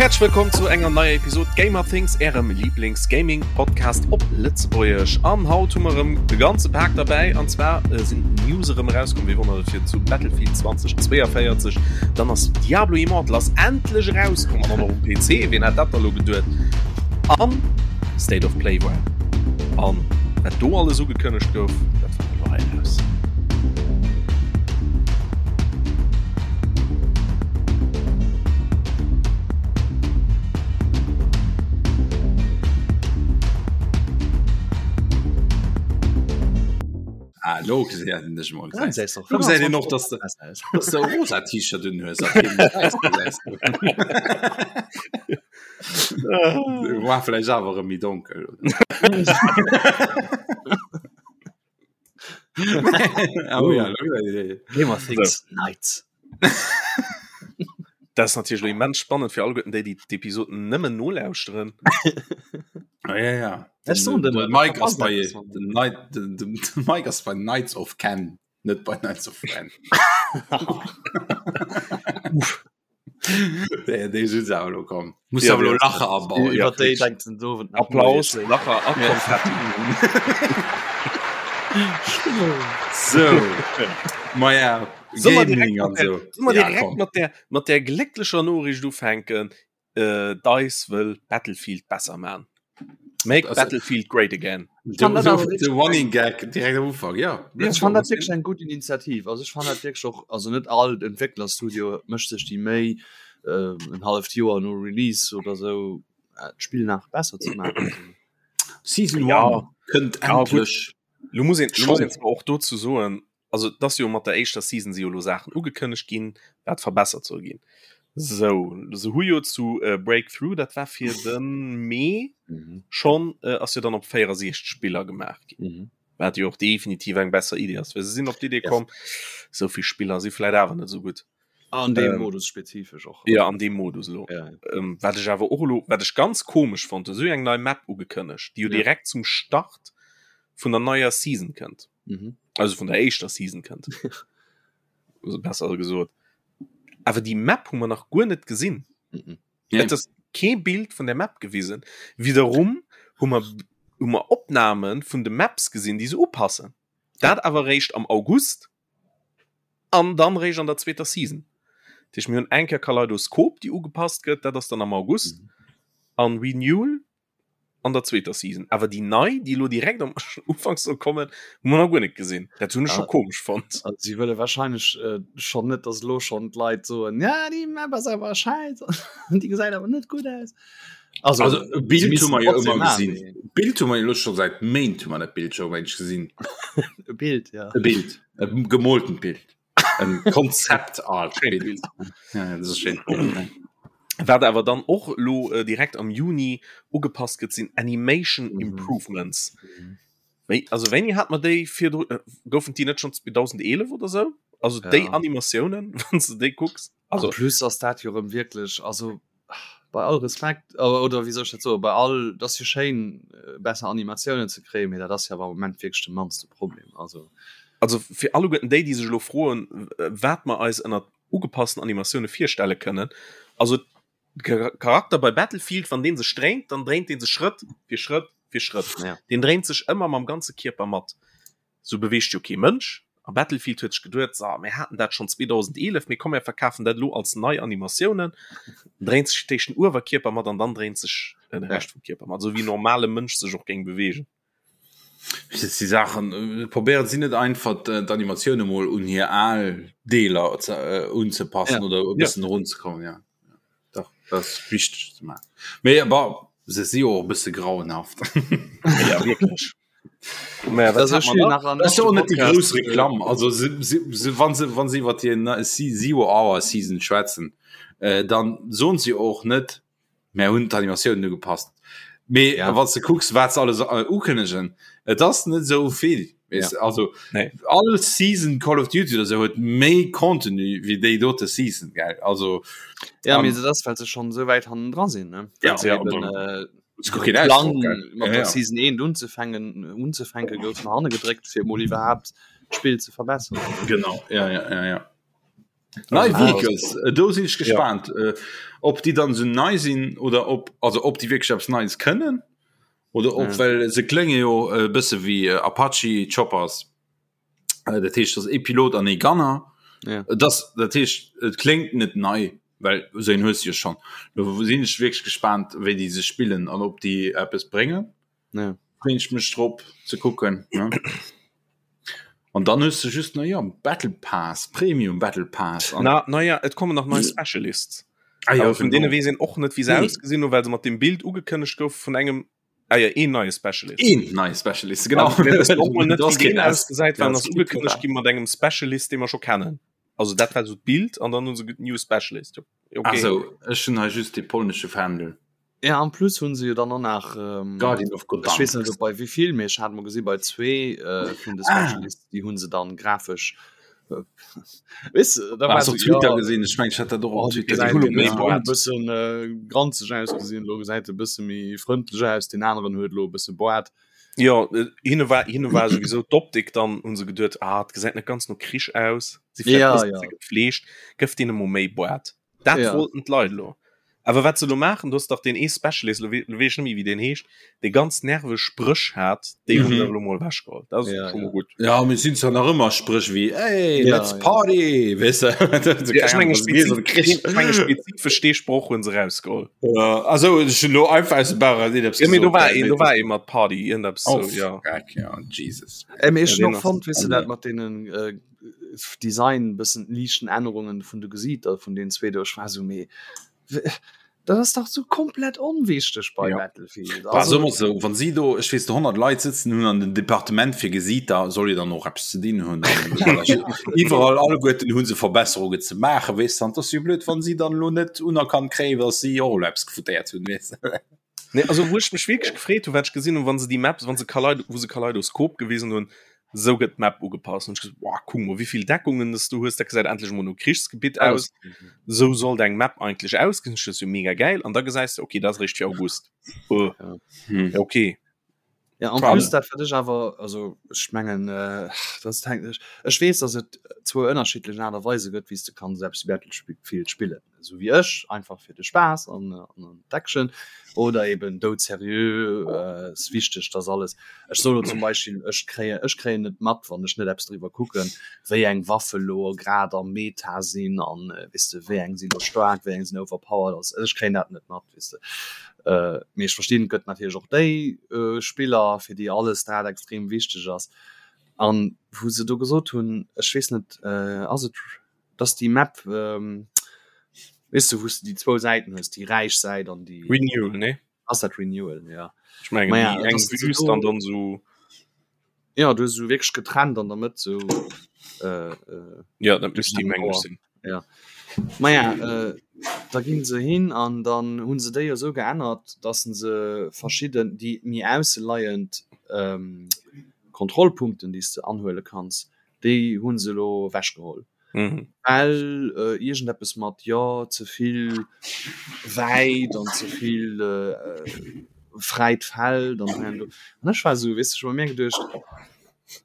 Häerzlech wëllkomm zu enger neier Episod Gamer Things, ärem Lieblings-Gaming-Podcast op Lëtzebuergesch. An haut hu mer erëm de ganze Pak derbäi, an zwar sinn d'News erëm erauskomm, wéi wonnert et fir zu Battlefield 2042. Dann ass Diablo Immortal ass endlech erauskomm an och nach um PC, wien hätt dat da lo geduet? An State of Play war an wat do alles ugekënnegt gouf, dat fanne mer elo hei eraus. Ah, lo gesäit en dech mol. Lo gesäit een och, dass de, dass de e rosa T-Shirt un hues a keen wäisst gesäis du. War vläicht awer erëm méi donkel. oh, ja, Gamer Things Nights. Dat ass natierlech immens spannend fir alleguerten déi, déi d'Episoden nëmmen nolauschteren. Ah, ja, ja. Den, den, den Mike ass bei den, Night, den, den, den Mike ass bei Knights of Ken, net bei Knights of Ren. Déi, déi sinn se awer elo komm. Muss Ja, awer elo déi- Lacher abauen. Ja, Iwwer déi denkt den Dowend nach Applaus, moies. Lacher a Konfetti. So. Maja, Soll mer direkt Gaming mat an der, so. soll mer Ja, direkt komm. mat der, mat der glécklecher Noriicht ufänken? Äh, DICE wëll Battlefield besser man. Make Also- Battlefield great again. De, fand dat awer de, de Running Gag direkt am Ufank, ja. Ech fand dat wierklech eng gutt Initiativ. Also ech fand dat wierklech och, also net all Entwécklerstudio mécht sech déi Méi, äh, en halleft Joer no Release oder sou äh, d'Spill nach besser ze maachen. Season Ja. 1 kënnt Ja, gut. endlech. Lo muss een, lo muss Schon. een zwar och dozou soen, also et ass jo mat der éischter Season si jo lo Saachen ugekënnegt ginn, wat verbessert soll ginn. Sou, se hu jo zu äh, Breakthrough, dat war fir de Mee Mhm. schonn, äh, ass jo dann op 64 Spiller gemaach ginn. Mhm. Wat jo och definitiv eng besser Idee ass, well se sinn op d'Idee Ja. komm, sou vill Spiller si vläit awer net sou gutt. An deem Ähm, Modus spezifesch och. Ja, an deem Modus elo. Ja, ja. Ähm, wat ech awer och elo, wat ech ganz komesch fonnt, se hu eng nei Map ugekënnegt, déi jo Ja. direkt zum Start vun der neier Season kënnt. Mhm. Also vun der éischter Season kënnt. Also besser gesot. Awer déi Map hu mer nach guer net gesinn. Mhm. Nee. Et ass kee Bild vun der Map gewisen. Wiederum hu mer hu mer Opname vun de Maps gesinn, déi se upassen. Dat awer réischt am August an dann réischt an der zweeter Season. Dat heescht, mir hunn eng Kéier Kaleidoskop, déi ugepasst gëtt, dat ass dann am August, Mhm. an Renewal an der zweeter Season. Awer déi nei, déi elo direkt am Ufank soll kommen, hu mer nach guer net gesinn. Dat hunn ech scho Ah. komesch fonnt. Also si wëlle wahrscheinlech äh, schonn net, dass elo schonn d'Leit soen, ja déi Map ass awer scheiss, déi gesäit awer net gutt aus. Also, Also, e Bild sie hu müssen mer jo trotzdem ëmmer machen, gesinn. Bild hu mer jo elo scho säit Méint hu mer dat Bild scho wéineg gesinn. E Bild, ja. E Bild, e gemoltent Bild. En Konzept Art Schéint Bild. Ja, ja, dat ass e schéint Bild. ne? Wat awer dann och elo äh, direkt am Juni ugepasst gëtt, sinn Animation Mhm. Improvements. Wéi, also wéini hat mer déi virdru äh, goufen déi net schon 2011 oder sou? Also Ja. déi Animatiounen, wann s de déi kucks. Also Also plus ass dat jo erëm wierklech, also bei all Respekt oder wéi soll ech dat soen, bei all, et ass jo schéin besser Animatiounen ze kréien, mee dat ass jo awer am Moment wierklech de mannste Problem. Also also fir alleguerten déi, déi sech elo froen, wat mer eis ënnert ugepassten Animatioune virstelle kënnen, also de Charakter bei Battlefield, wann dee sech dréint, dann dréint dee sech Schrëtt fir Schrëtt fir Schrëtt. Ja. Deen dréint sech ëmmer mam ganze Kierper mat. Sou beweegt jo kee Mënsch. A Battlefield huet sech geduet, So, mir haten dat schonn 2011, mee komm, mir verkafen dat elo als nei Animatiounen. Dann dréint sech d'éischt den Uewerkierper mat an dann dréint sech de Rescht vum Kierper mat, esou wéi en normale Mënsch sech och géing beweegen. Déi Saachen, probéieren si net einfach d'Animatioune mol un hir al Deeler unzepassen Ja. oder e bëssen erunzekommen, ja. Dach, dat ass wichteg ze maachen. Mee bon, se si jo och e bësse grauenhaft. Ja, wierklech. Mä wat hat mer nach? Dat ass jo och net déi grouss Reklamm. Also se, se, se, wann se, wann se iwwer déi Zero Hour Season schwätzen, äh, dann soen se jo och net, mär hunn d'Animatiounen ugepasst. Mee Ja. wann s de kucks, wat se alles äh, ukënnegen, et ass net esou vill. Weess Ja. de, also Nee. all Season Call of Duty oder sou huet méi Contenu wéi déi dote Season, gell? Also Ja, ähm, mee dat ass, well se schonn esou wäit hannendra sinn, ne? Ja, Well se ja, eben, dann- äh, Plan mat der Season 1 unzefänken unzefänke gouf no hanne gedréckt fir mol iwwerhaapt d'Spill ze verbesseren. Genau ja, ja, ja, ja. Nei Vehicles, äh, do sinn ech gespannt, ja. äh, ob déi dann so nei sinn oder ob also ob déi wierklech eppes Neies kënnen oder ob ja. well se klénge jo e äh, bësse wéi äh, Apache Choppers. Äh, dat heescht dat e Pilot an e Gunner. Ja. Das, dat heescht et kléngt net nei, well so en hues jo schon. Do sinn ech wierklech gespannt, wéi déi se spillen an ob déi eppes bréngen. Ja. Freeën ech mech drop ze kucken. Ne? An dann hues du just na ja Battle Pass Premium Battle Pass an Na, naja, et kommen nach nei Specialists. Ah, ja, Aber vun genau. deene weess een och net, wéi se Nee. ausgesinn hunn, well se mat dem Bild ugekënnegt gouf vun engem ah, ja, een neie Specialist. Een neie Specialist genau. An mir wëssen och mol net, Du hast wéi deen keen S. ausgesäit, well Ja, en es ass gibt ugekënnegt gi mat engem Specialist, dee mer scho kennen. Also dat war so d'Bild an dann hu se ge- New Specialist. Okay. Also ech hunn hei just de polnesche Fändel. Ja en plus hunn se jo dann och nach ähm, Guardian of ech weess net Gdansk. op bei wéivill, mee ech hat mol gesi bei zwee äh, vun de Ah. Specialists, déi hunn se dann grafesch äh, weess de, da Ah, war hast se op Twitter ja gesinn, ech mengen ech hat dat och oh, op déi Twitter gesäit hunn gesinn. méi e Ja. Boart. bëssen äh, granzeg ausgesinn, lo gesäit e bësse méi frëndlech aus, deen aneren huet lo e bësse Boart. Jo, äh, hinne war hinne war sowieso d'Optik dann hunn se geduet, ah, et gesäit net ganz no Krich aus, si vläicht Ja, bëssen ja. ze gepflegt, gëff deene mol méi Boart. Dat Ja. wollten d'Leit elo. Awer wat se elo maachen, du hues dach deen ee Specialist, elo wee- elo weess ech net méi wéi deen heescht, dee ganz nerveg Spréch hat, déi hunn Mhm. se elo mol ewechgeholl. Dat ass Ja, scho ja. mol gutt. Ja, mir sinn zwar nach ëmmer Spréch wéi Hey, Ja, let's ja. party, weess de? Ja, ech menge Keine Ahnung, spezif ech menge spezifesch dee Sproch hunn se rausgeholl. Ja, also ech hunn elo einfach aus dem Bauch eraus iergendepps Ja, mee do gesot, war gell, een, mee do war ee mat Party, iergendeppes Oh, sou, ja. fuck, ja, Jesus. Äh, mee ech Ja, hunn deen och ass fonnt, weess de, dat mat deenen äh, Design bëssen liichten Ännerungen vun de Gesiiter vun den zwee do ech war sou mee dat ass dach sou komplett onwichteg bei Ja. Battlefield War also ëmmer sou, wann si do ech weess 100 Leit sëtzen hunn an den Departement fir Gesiiter soll jo dann och eppes ze dinn hunn. Iwwerall alleguerten hu se Verbesserungen ze maachen, weess de, an 't ass jo blöd wann si dann elo net unerkannt kréien, datt si och elo eppes gefuttéiert hunn, weess de. Nee, also wou ech mech wierklech gefreet hu wat ech gesinn hunn, wann se déi Maps, wann se Kaleido, wou se Kaleidoskop gewisen hunn, sou gëtt d'Map ugepasst. Hunn ech gesot, boah, kuck mol wéivill Deckungen s du hues, dat gesäit endlech mol no Krichsgebitt aus. Sou sollt eng Map eigentlech ausgesinn, dat ass jo mega gäil. An da gesäis de, okay, dat ass eréischt fir August. Oh, Hm. ja, okay. Ja, en plus dat wat ech awer also ech mengen äh, das hängt ech ech weess dass et zwou ënnerschiddlech Aart a Weise gëtt wéi s de kanns eppes wéi Battlefield spillen esou wéi ech einfach fir de Spaass an an d'Action oder eben doudserieux äh, ass wichteg dass alles ech soe lo zum Beispill ech kréie ech kréien net mat wann ech net eppes driwwer kucken wéi eng Waffe lo grad am Meta sinn an weess de wéi eng sinn lo staark wéi eng sinn overpowered also ech kréien dat net mat weess de. Äh, mee ech verstinn, et gëtt natierlech och déi äh, Spiller, fir déi alles dat extrem wichteg ass. An wou se do gesot hunn, ech weess net, äh, ass et, dass déi Map, ähm, weess du, wou s de déi zwou Säiten hues, déi räich Säit an déi. Renewal, nee? Ass dat Renewal, ja. Ech mengen, Maja, déi eng dass se Wüst do an dann sou. Ja, du hues esou wierklech getrennt an der Mëtt sou äh, äh, Ja, dat misst déi meng ech sinn. Ja. Maja, äh, da ginn se hin an dann hunn se déi esou geännert, dass se verschidden déi méi ausseleiend ähm, Kontrollpunkten, déi s de anhuele kanns, déi hunn se elo ewechgeholl. Mhm. Well äh, iergendeppes mat jo ze vill wäit an ze vill äh, fräit Feld an hei an do. An ech war esou, weess de, ech hu bei mir geduecht,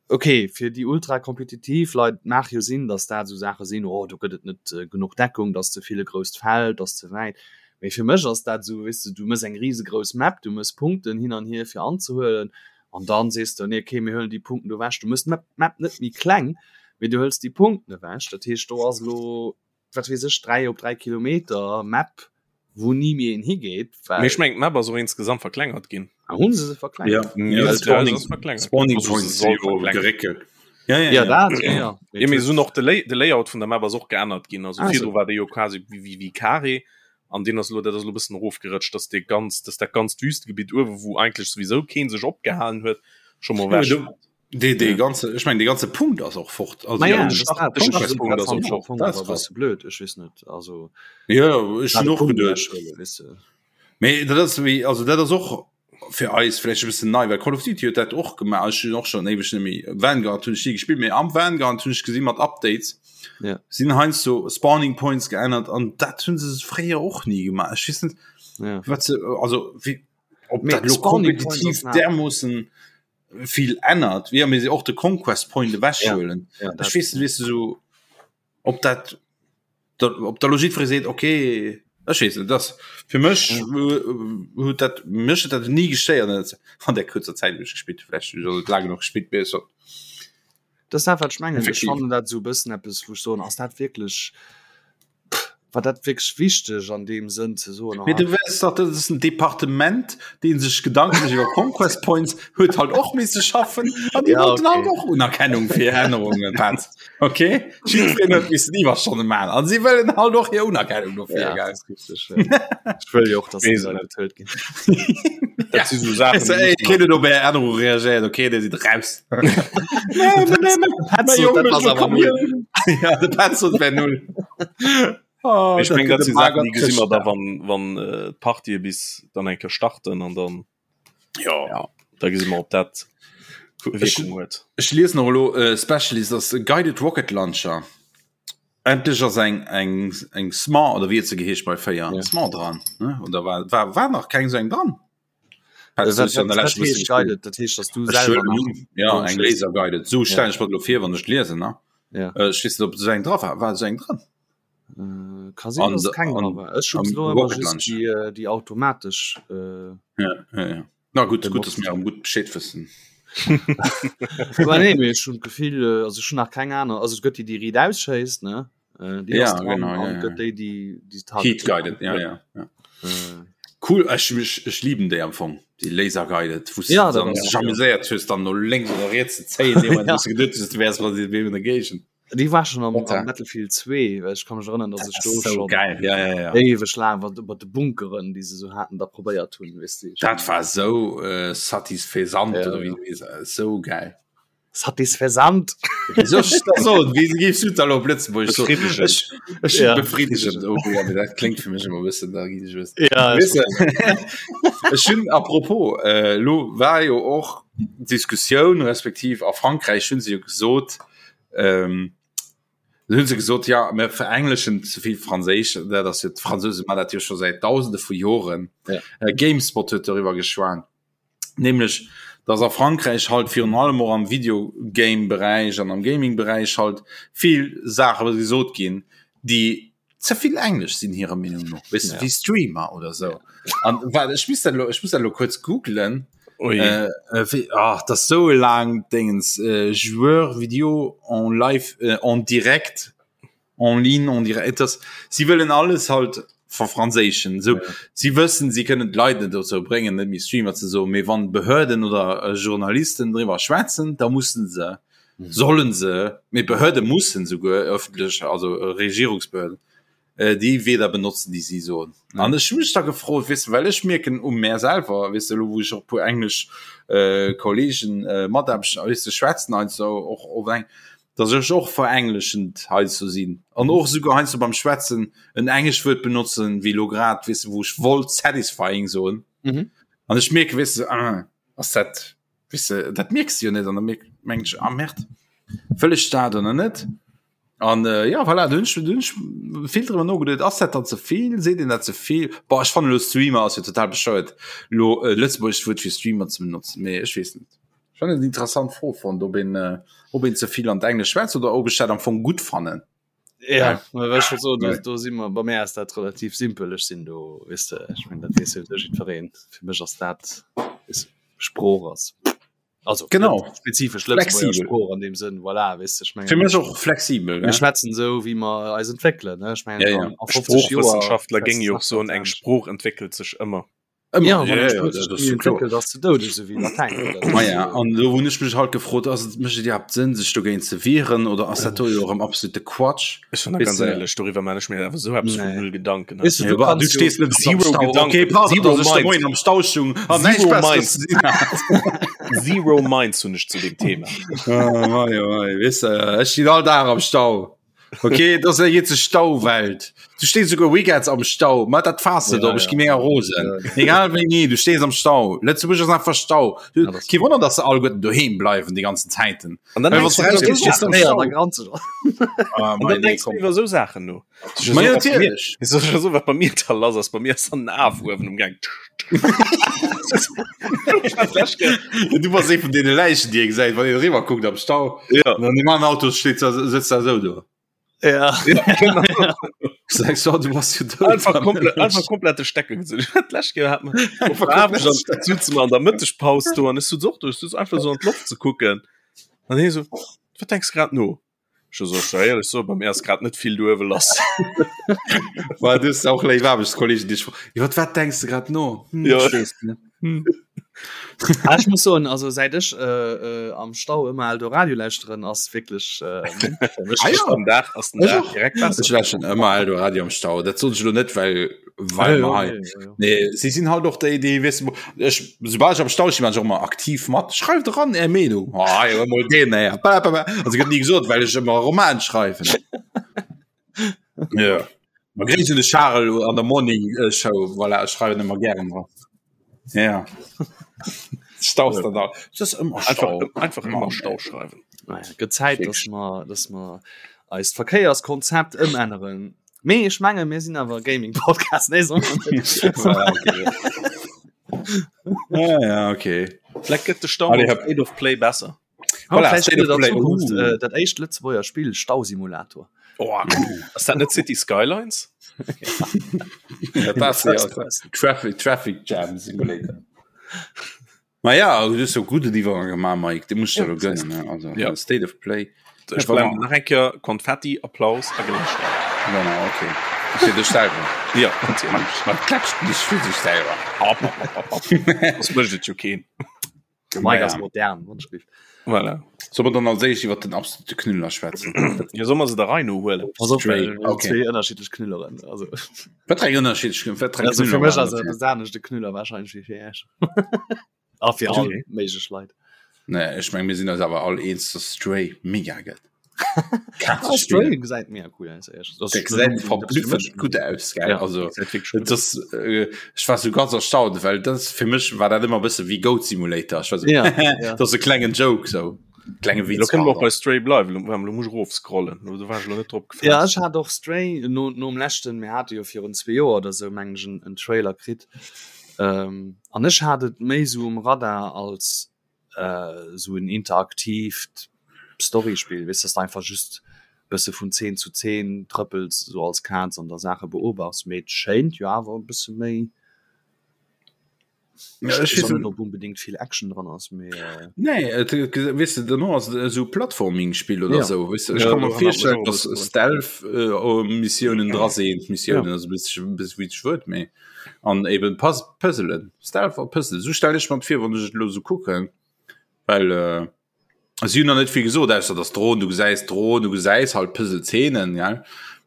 okay, fir déi ultra kompetitiv Leit mag jo sinn, datt dat esou Saache sinn, oh do gëtt et net äh, genuch Deckung, dat ass ze vill e grousst Feld, dat ass ze wäit. Mee fir mech ass dat esou, weess de, du mëss eng risegrouss Map, du mëss Punkten hin an hier fir anzehuelen An dann sees de, nee, okay, mir huelen déi Punkten do ewech. Du mëss d'Map d'Map net méi kleng, mee du hëls déi Punkten ewech. Dat heescht, do ass elo, wat weess ech, 3 op 3 Kilometer Map, wou ni méi een higeet, Mee well. ech mengen, d'Map ass och insgesamt verklengert ginn. Ah, hu se se verklengert? Ja, ja, Ja, Spawning, se ass verklengert. Spawning Also se Points soll si jo verklengert. geréckelt. Ja, ja, Ja, ja. dat, ja, ja. Mee Ja, mee et se hunn och de Lay de Layout vun der Map ass och geännert ginn. Also Ah, virdru sou. war dee jo quasi wéi wéi wéi Carré An deen ass elo, dat ass elo e bëssen erofgerëtscht, dass dee ganz, dass dat ganzt Wüstegebitt uewe, wou eigentlech souwisou kee sech opgehalen huet, scho mol Ja, ewech. du, dee, dee ganze, ech mengen, dee ganze Punkt ass och fort. Also, Ma ja, ja, de Start, de Startpunkt ass och fort. Dat ass krass. Blöd, ech weess net, also. Ja, ech hunn och Punkt geduecht. ewechhuelen, weess de. Mee dat ass wéi, also dat ass och fir eis vläicht e bëssen nei, well Call of Duty huet dat och gemaach. Ech hunn och schonn éiweg net méi Vanguard hunn ech ni gespillt, mee am Vanguard hunn ech gesi mat Updates Ja. sinn heiansdo Spawning Points geännert an dat hunn se fréier och ni gemaach. Ech weess net Ja. wat se also wéi ob Mee dat lo Spawning Points kompetitiv ass nach- dermoossen vill ännert, wéi mir se och de Conquest Point ewechhuelen. Ja, dat- Ech weess net, weess de sou ob dat. Op der Logik seet okay ech weess net, das fir mech huet dat mech huet dat nie gestéiert net an der kurzer Zäit wou ech gespillt hu, vläicht hunn ech och net laang genuch gespillt, mee so. Dat ass dat wat ech mengen, ech fannen dat esou e bëssen eppes wou ech soen, ass dat wierklech, war dat wierklech wichteg an deem Sënn ze soen, Mee du weess dach, dat ass en Departement, dee sech Gedanke mécht iwwer Conquest Points, huet halt och misse schaffen an déi Ja, wollten okay. halt och Unerkennung fir Ännerungen, Petz. Okay, jiddwereen huet missen Iwwerstonne maachen an si wëllen halt och hir Unerkennung dofir, Ja, gell? dat ass richteg, ja. Ech wëll jo och, dass déi Leit bezuelt ginn. Dat si sou Saachen, Weißt du, déi ey, muss keen huet op är Ännerung reagéiert, okay, dir sidd raus. Nee, nee, nee, nee. Petz sot, dat ass awer null. Ja, de Petz sot, wär null. Oh, Ech meng, dat gëtt si e Saachen, déi magert gesi mer da, Chrëschtdag. wann, wann äh, d'Partië bis dann eng Kéier starten an dann Ja. ja, da gesi mer, ob dat Wierkung huet. Ech liesen och elo äh, Specialist ass e Guided Rocket Launcher. Endlech ass eng eng eng Smart oder wéi huet se geheescht bei 4 Ja. Smart dran ne? Oder war war war nach keng sou eng dran? Äh, Petz, du wat, hues jo an wat, der wat leschter bësse heescht gespillt. guided? Dat heescht, dass du Ech selwer huelen nach un, ja do eng schéisst. Laser Guided. Sou Ja. stellen ech mer dat elo vir wann ech liesen ne. Ja. Äh, Ech weess net ob sou eng dra war. War sou eng dran? Äh, ka sinn, An dass de keng dra an war. Ech hunn am elo ëmmer Rocket just Launcher. déi, äh, déi automatesch äh, Ja, ja, ja. Na gutt, gutt, dass benotzt. mir erëm gutt Bescheed wëssen. Aber nee, mee ech hunn d'Gefill, äh, also ech hunn nach keng aner, also et gëtt déi, déi riit ausschéisst, ne? Äh, déi Ja, ass dran genau, ja, an ja. gëtt déi, déi, déi Heat targetéiert. guided, ja, ja, ja. Äh, Cool, ech, ech, ech lieben déi am Fong, déi Laser guided, wou s Ja, du dat dann ass sech ja. amuséiert hues, dann no lénks oder riets ze zéien, dee Moment, Ja. wou s du geduet hues, du wäers mat deem in der Géigend. Déi war schon am, Meta. am Battlefield 2, well ech kann mech erënnern, dass Dat ech ass do sou schon geil, ja, ja, ja. éiweg laang wat mat de Bunkeren, déi se sou haten, da probéiert hunn, weess de. Dat war sou äh, satisfaisant Ja, oder wéi ja. du weess, sou geil. Satisfaisant. Wéi soll ech dat soen? Wéi géifs du dat elo op Lëtzebuergesch soen? Befriddegend. Ech, ech Ja. befriddegend, oh ja, mee dat kléngt fir mech ëmmer e bëssen, da ginn ech e bëssen. Ja, Weess de, ech hunn apropos, äh, elo war jo och d'Diskussioun, respektiv a Frankräich hunn se jo gesot, ähm, hunn se gesot, ja mir verengleschen ze vill Franséisch, dat ass jo d'Fransouse man dat jo scho säit Dausende vu Joren. Ja. Äh, Gamespot huet doriwwer geschwat, nämlech dass a Frankräich halt virun allem och am Videogame-Beräich an am Gaming-Beräich halt vill Saache gesot ginn, déi ze vill Englesch sinn hirer Meenung no, weess de, Ja. wéi Streamer oder sou. An wat ech misst dat elo, ech muss dat elo kuerz googlen. Ui. Äh, äh, wéi, ach, dat ass sou e laangt Déngens, äh, Joueur vidéo en live, äh, en direct, en ligne, en direct, et ass, si wëllen alles halt verfranséischen. Sou, Ja. si wëssen, si kënnen d'Leit net dozou bréngen, net méi Streamer ze soen, mee wann Behörden oder äh, Journalisten driwwer schwätzen, da mussen se Sollen se, mee Behörde mussen souguer öffentlech, also Regierungsbehörden, déi Wierder benotzen, déi si soen. An ech hu mech da gefrot, weess de, well ech mierken u mär selwer, weess de, elo wou ech och e puer englesch Kollegen, Mataarbechter, weess de, schwätzen heiansdo och op eng, datt ech och verengleschend heiansdo sinn an och esouguer heiansdo beim Schwätzen en englescht Wuert benotzen, wéi elo grad, weess de, wou ech wollt satisfying soen an ech mierken, weess de, ah, ass dat Weess de, dat mierks de jo net an da meng ech, ah Merde, wëll ech dat oder net? An äh, ja voilà, du hunn ech, du hunn ech vill drüber nogeduet, ass dat dann ze vill, seet een dat ze vill? Boah, ech fannen elo Streamer ass jo total bescheuert, elo e lëtzebuergescht Wuert fir Streamer ze benotzen, mee ech weess net. Ech fannen et eng interessant Fro fonnt, ob een, äh, ob een ze vill an d'Englesch schwätzt oder ob ech dat am Fong gutt fannen. Ja, ja. So, do, do si mer bei mir ass dat relativ simpel ech sinn do weess de ech meng dat weess jo jiddwereen fir mech ass dat is Sprooch ass also genau spezifesch Lëtzebuerger Sprooch an dem Sënn voilà weess de ech meng fir mech och flexibel mir schwätzen sou wéi mer eis entwéckelen ne ech meng ja, ja. an 50 Joer Sproochwëssenschaftler géinge jo och soen eng Sprooch entwéckelt sech ëmmer. Ja, an do hunn ech mech halt gefrot ass et mécht et iwwerhaapt Sënn sech dogéint ze wieren oder ass dat do jo erëm absolute Quatsch? Ech hunn da ganz éierlech doriwwer man ech mir awer sou eppes vun null Gedanken. Weess du, du kannst du stees net am Zero Stau. Gedanken. Okay, pardon, Zero dass ech de Mind. Moien am Stau stung an näischt Zero Besseres ze dinn hat. Zero Minds hunn ech zu deem Thema. Ah, mei, oh mei, weess de, ech stinn all Dag am Stau. Okay, dat ass eng eenzeg Stauwelt. Du stees souguer Weekends am Stau. Ma dat faass de Ja, op, ech ja. gi mega rosen. Egal wéini, du stees am Stau. Lëtzebuerg ass einfach Stau. Du, Ja, das- kee Wonner, dass se alleguerten doheem bleiwen déi ganzen Zäiten. An dann Well denkst wann du du iwwer rausgees, sou stees du am Saachen. Ja, Stau. da granzt du. Ah, An mei, dann nee, denkst du komm. iwwer sou Saachen no. Ma ja, So, wat bei mir- natierlech. Ist das schon so, wat bei mir da lass ass? Bei mir ass dann en Af uewen um Gang. Du bass ee vun deene Läichen, déi ee gesäit, wann een eriwwer kuckt am Stau. Ja. An deem aneren Auto steet da, sëtzt da esou do. Ja. Ja, genau. Sagst du, du warst jo dout. Einfach komplett, einfach komplett de Stecker gezunn. D'lescht Kéier hat mer Einfach komplett dann sutze mer an der Mëttegpaus do an ech sutz och do, ech sutz einfach so an d'Loft ze kucken. An hie so, wat denks grad no? Ech so, ech soll éierlech soen, bei mir ass grad net vill do uewe lass. War du auch léif Aarbechtskollegen, déi ech fro- Iwwer wat denks du grad no? Hm, Ja. ech weess net. Hm. Ah, ech muss soen, also säit ech äh, äh, am Stau ëmmer Eldoradio lauschteren, ass wierklech äh, Ah, ja. Am Dag ass den Ech Dag och. direkt besser. Ech lauschteren ëmmer Eldoradio am Stau. Dat sot ech elo net, well well mer hei. Nee, si sinn halt och déi, déi weess du, ech soubal ech am Stau stinn, maachen ech och ëmmer aktiv mat. Schreift eran är Meenung. Ah, jo, emol deen, ey. Ba, ba, ba. Also gëtt ni gesot, well ech ëmmer Roman schreiwen. Ja. Ma gréiss un de Charel an der Morning äh, Show, voilà, ech schreiwen ëmmer gären dran. Ja. Stau ist dann da. Das ist immer Einfach, Stau. einfach immer Mann, Stau ey. schreiwen. Naja, gëtt Zäit, dass mer, dass mer eist Verkéierskonzept ëmänneren. Mee ech menge mir sinn awer Gaming-Podcast, nee, soll man net. Voilà, okay. Ja, ja, okay. Vielleicht gëtt de Stau Allez, mat hop. State of Play besser. Voilà, Vielleicht State gëtt of et an Play. Zukunft Uh. äh, dat éischt Lëtzebuerger Spill Stausimulator. Oh, ass dat net City Skylines? Ja, das ja, Traffic, Traffic Jam Simulator. Ma ja, du hues jo gudden Iwwergang gemaach, Mike, de muss ich dir gönnen, ne? Also, Ja. State of Play. Ech blenden nach eng Kéier Konfetti, Applaus a Gelächter. Genau, okay. Fir dech selwer. Ja, natierlech. Man klatscht nicht fir sech selwer. Hopp, hopp, hopp, hopp. Soss mécht et jo keen. Mike Ja. ass modern, Wonschgriff. Voilà. Soll mer dann als éischt iwwer den absolute Knüller schwätzen? Ja, soll mer se der Rei no huelen? Pass op, Straight, well wir okay. zwee ënnerschiddlech Knülleren. Also, Wat eng ënnerschiddlech wat eng also fir Knüller mech waren ass dat et hier? e aneschte Knüller wahrscheinlech wéi fir Iech. A fir all Okay. méiglech Leit. Nee, ech meng mir sinn eis awer all eens, dass Stray mega gëtt. Ah, Stray gesäit mega cool aus. ehrlich. Das Der ist gesäit nur- verblüffend gutt aus, gell? Ja. Also Gesäit wirklich gut das, äh, ech war so ganz erstaunt, well das fir mech war dat ëmmer bësse wéi Goat Simulator. Ech war so, Ja, ja. das ass e klengen Joke so klenge Lo Witz. kënne mer och bei Stray bleiwen. Lo, lo muss ech erofscrollen. Lo do war ech lo net drop Ja, gefasst. ech hat och Stray no, nom leschten, mir hate jo virun zwee Joer oder sou meng ech en, en Trailer kritt. Ähm, an ech hat et méi sou um Radar als äh, sou en interaktiivt Storyspill, weess dass de einfach just bësse vun Zeen zu Zeen trëppels, sou als Kaz an der Saache beobachs, mee et schéint jo awer e bësse méi Ja, ech Ech weess weess net ob unbedingt vill Action dran ass, mee äh, Nee, et, et, weess de, duerno ass et esou Plattforming-Spill oder Ja. sou, weess de, ech Ja, kann mer doran hat mech virstellen, och e dass bësse Stealth-Missiounen dra sinn, Missiounen, also bis bis wéi ech wëllt, mee an eben Puz Puzzelen, Stealth a Puzzle, sou stell ech mer et vir, wann ech et elo sou kucken, well äh, si hunn nach net vill gesot, ausser dass Drohnen, du gesäis Drohnen, du gesäis halt Puzzle-Zeenen, gell,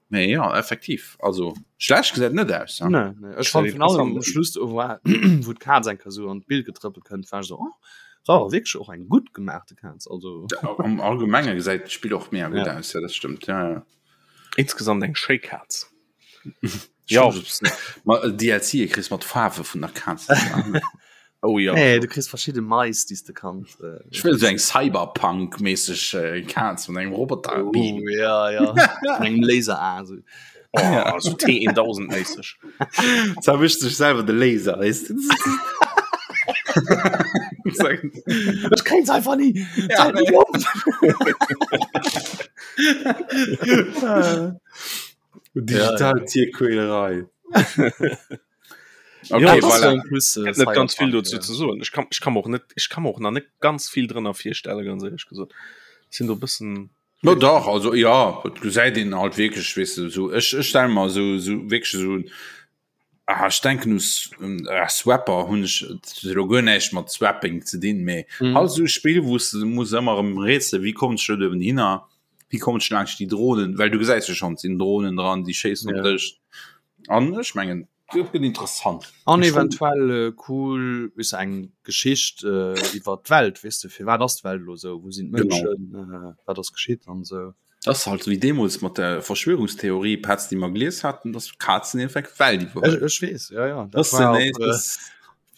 mee ja, effektiv, also schlecht gesäit net aus, ja. Nee, nee. Ech fand Gesäit vun allem am interessant aus. Schluss do war wou d'Kaz eng Kéier sou an d'Bild getrëppelt kënnt, war ech sou oh, war awer wierklech och eng gutt gemaachte Kaz, also Am Allgemenge gesäit d'Spill och mega gutt Ja. aus, ja, dat stëmmt, ja, ja. Insgesamt eng schéi Kaz. Ja. Ma DLC kriss mat Faarwe vun der Kaz. Oh ja. Nee, du kriss verschidde Mais, déi s de kanns. Äh, Ech wëll sou eng Cyberpunk-mässeg äh, Kaz mat engem Roboter. oh, ja, ja. Mat engem Laser-A. So. Oh, so T1000 mäßig. Zerwischt sech selwer de Laser, weißt du? Ech kréien einfach nie. Ja. Digital Tierquälerei. Okay, Ja, voilà. Plus, äh, net ganz vill Cyberpunk, dazu ja. ze soen. Ech kann, ech kann mer och net, ech kann mer och nach net ganz vill drënner virstellen, ganz ehrlech gesot. Sinn do bëssen No dach, also ja, et gesäit een halt wierklech, weess de, sou ech ech stelle mer sou sou wierklech sou ah, ech denken u S- ah, Swapper hunn ech et huet elo guer näischt mat Swapping ze dinn, mee Mhm. halt sou e Spill, wou s de muss ëmmer erëm rätselen, wéi kommen ech do uewen hinner, wéi kommen ech laanscht déi Drohnen, well du gesäis jo schonn, et sinn Drohnen dran, déi schéissen op Ja. dech an ech mengen, dat gëtt interessant. An Ech froen- eventuell äh, cool weess de, eng Geschicht äh, iwwer d'Welt, weess de, firwat ass d'Welt elo sou, wou sinn Genau. d'Mënschen, äh, wat ass geschitt an sou. Das ass halt wéi deemools mat der Verschwörungstheorie Petz, déi mer gelies haten, dass Kazen effekt d'Welt Ech, iwwerhuelen. ech weess, ja, ja. Das Dat war sind op, äh, das,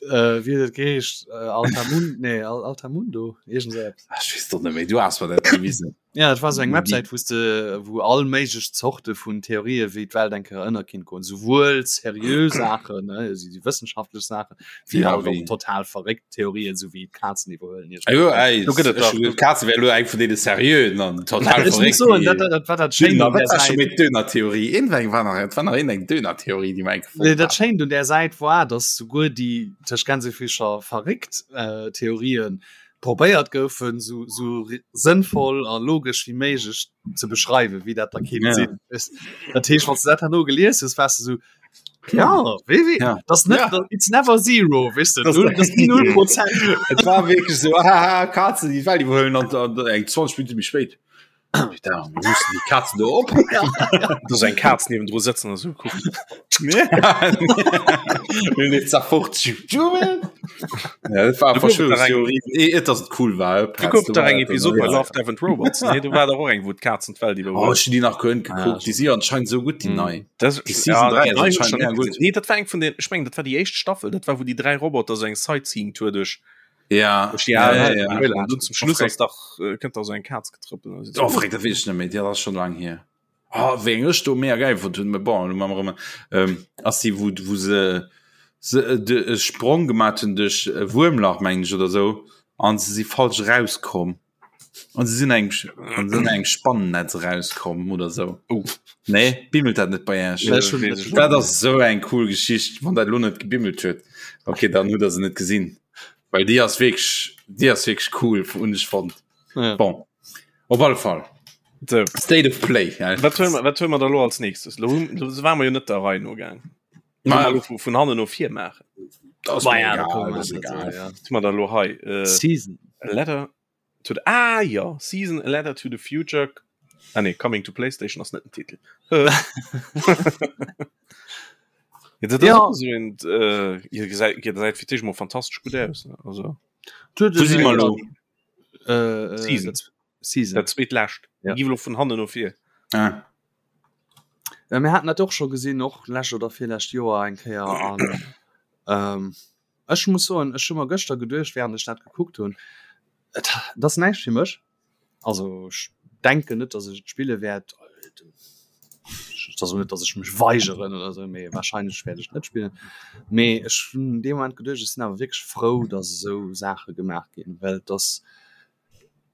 äh, wéi huet et geheescht, äh, Altamun, nee, Al Altamundo, iergend sou eppes. ech weess doch net méi, du has mer dat gewisen. Ja, et war sou eng Websäit, wou s de, wou all méiglech Zorte vun Theorië wéi d'Welt eng Kéier ënner kinnt goen, souwuel seriö Saachen, ne, esou déi wëssenschaftlech Saachen, wéi Ja, halt och wéi- total verréckt Theorien, sou wéi d'Kazen iwwerhuelen iech. Ah jo, ey, Do gëtt et ech dach- hun d'Kaze wär elo eng vun deene seriöen an total Ech muss verréckt. soen, dat, dat, dat war dat Schéint Döner, un wat där war schon Säit. mit Döner-Theorie? Iergendweng war nach, et war nach iergendeng Döner-Theorie, déi mer eng Nee, gefonnt dat hat. Schéint un där Säit war, dass souguer déi tëscht Gänsefüßcher verréckt äh, Theorien probéiert goufen, sou, sou sënnvoll a logesch wéi méiglech ze beschreiwen, wéi dat da kinnt Ja. sinn. Weess, dat heescht, wann s du dat herno gelies hues, waars du sou, ja, wéi, wéi, Ja. dat ass net, Ja. dat, it's never zero, weess du, Das- null, dat ass ni null Prozent. Et war wierklech sou, haha, Kazen, déi d'Welt iwwerhuelen an, an eng 20 Minutte méi spéit. Putain, wo mussen die Katzen do op? Do ass eng Kaz niewendru sëtzen a sou kuckt. Zerfort. Ja, dat war Du gouf et nach eng- Verschwörungstheorie. Eh, et ass et cool war. Du gouf et dach eng Episod bei Love, Death and Robots. Nee, do war dach och eng, wou d'Kazen d'Welt Oh, iwwerhuelen. ech hun déi nach guer net Ah, gekuckt. Déi si anscheinend sou gutt, déi Mm. nei. Das, Die Season 3 die ass nei hun ech anscheinend schon mega net gutt. gesinn. Nee, dat war eng vun den, ech mengen, dat war déi éischt Staffel. Dat war, wou déi dräi Roboter sou eng Sightseeing-Tour duerch Ja, ja, ja, ja, ja. Und zum Schluss ass dach äh, kënnt da so eng Kaz getrëppelt. Oh, freck, dat weess ech net méi, dat ass schon lang hier. Oh, wéi eng ech do mega geil fonnt hunn, mä bon, elo maache mer erëm, ähm, ass déi, wou, wou se, se äh, de, e Sprong gemaat hunn duerch e Wuermlach, mengen ech, oder sou, an se si falsch erauskomm. An se sinn engem, an se sinn engem Spannennetz erauskomm oder sou. Oh. Nee, bimmelt dat net bei Iech? Nee, ech hunn net. Dat ass sou eng cool Geschicht, wann dat elo net gebimmelt huet. Okay, dann hutt der se net gesinn. Well déi ass wierklech, déi ass wierklech cool, hunn ech fonnt. Ja. Bon, op alle Fall. So. State of Play. Ja. Wat huele mer, wat huele mer da lo als nächstes? Lo, lo waren wir jo net der Rei no gaang. Ma, Lo vu, vun hannen no vir maachen. das ass Ma mir ja, da egal, kommen wir das ass net egal. so, ja. Was hu mer da lo hei? Äh, Season. Letter to the, ah ja, Season, A Letter to the Future. Ah nee, Coming to PlayStation ass net den Titel. Ja, dat ass Ja. och esou een, äh, ihr gesäit, ihr gesäit fir d'éischt mol fantastesch gutt aus, ne? Also, Wo si mer lo? Äh, äh, Season. dat- Season. dat zweetlescht. Ja. Gi lo vun hannen no vir. Ah. Äh, mir haten dat och scho gesinn, och lescht oder virlescht Joer eng Kéier an ähm, ech muss soen, ech hu mer gëschter geduecht, während ech dat gekuckt hunn, et dat ass näischt fir mech. Also ech denken net, dass ech et spille wäert. Et ass och net, dass ech mech weigeren oder esou, mee wahrscheinlech wäert ech et net spillen. Mee ech hunn an deem Moment geduecht, ech sinn awer wierklech frou, dass esou Saache gemaach ginn, well et ass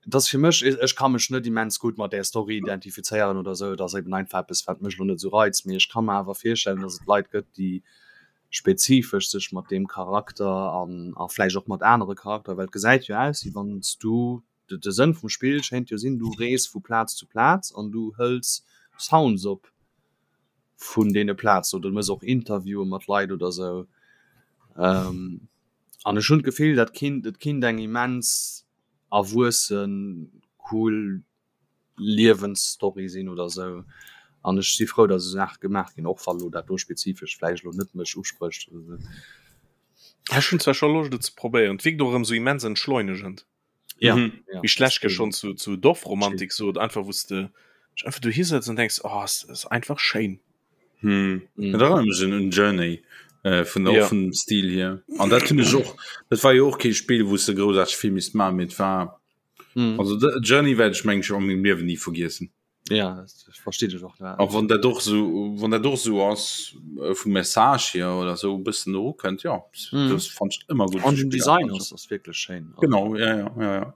et ass fir mech, ech ka mech net immens gutt mat där Story identifizéieren oder esou, et ass eben einfach eppes, wat mech elo net esou reizt. Mee ech ka mer awer virstellen, dass et Leit gëtt, déi spezifesch sech mat deem Charakter an a vläicht och mat anere Charakter, well et gesäit jo aus, wéi wann s du, de Sënn vum Spill schéint jo sinn, du rees vu Plaz zu Plaz an du hëls Sounds op vun deene Plazen oder du méchs och Interviewe mat Leit oder esou. An ech hunn d'Gefill, dat kinnt, et kinnt eng immens erwuessen, cool Liewensstory sinn oder esou. An ech si frou, datt esou Saache gemaach ginn, och wa lo dat do spezifesch vläicht elo net mech usprécht oder esou. Ech hunn zwar scho Loscht et ze probéieren, et wierkt och erëm esou immens entschleunegend. Ja, Mhm. ja. Wéi ech d'lescht Kéier schonn zu, zu Dorfromantik sot, einfach wou s de dech einfach dohi sëtz an denks, oh, es ass einfach schéin. Hm. Mhm. Dat erinnert mech un un Journey äh, vun der Ja. och vun dem Stil hier. An dat hunn ech och, dat war jo och kee Spill, wou s de groussaarteg vill misst maachen, mee et war Mhm. Also de Journey wäert ech meng ech an mengem Liewen ni vergiessen. Ja, dat versteet ech och. A wann dat och sou wann dat och sou ass äh, vum Message hier oder sou e bëssen erukënnt, ja Mhm. das fand ich ëmmer gutt. An den Design ass ass wierklech schéin. Genau, ja, ja, ja, ja.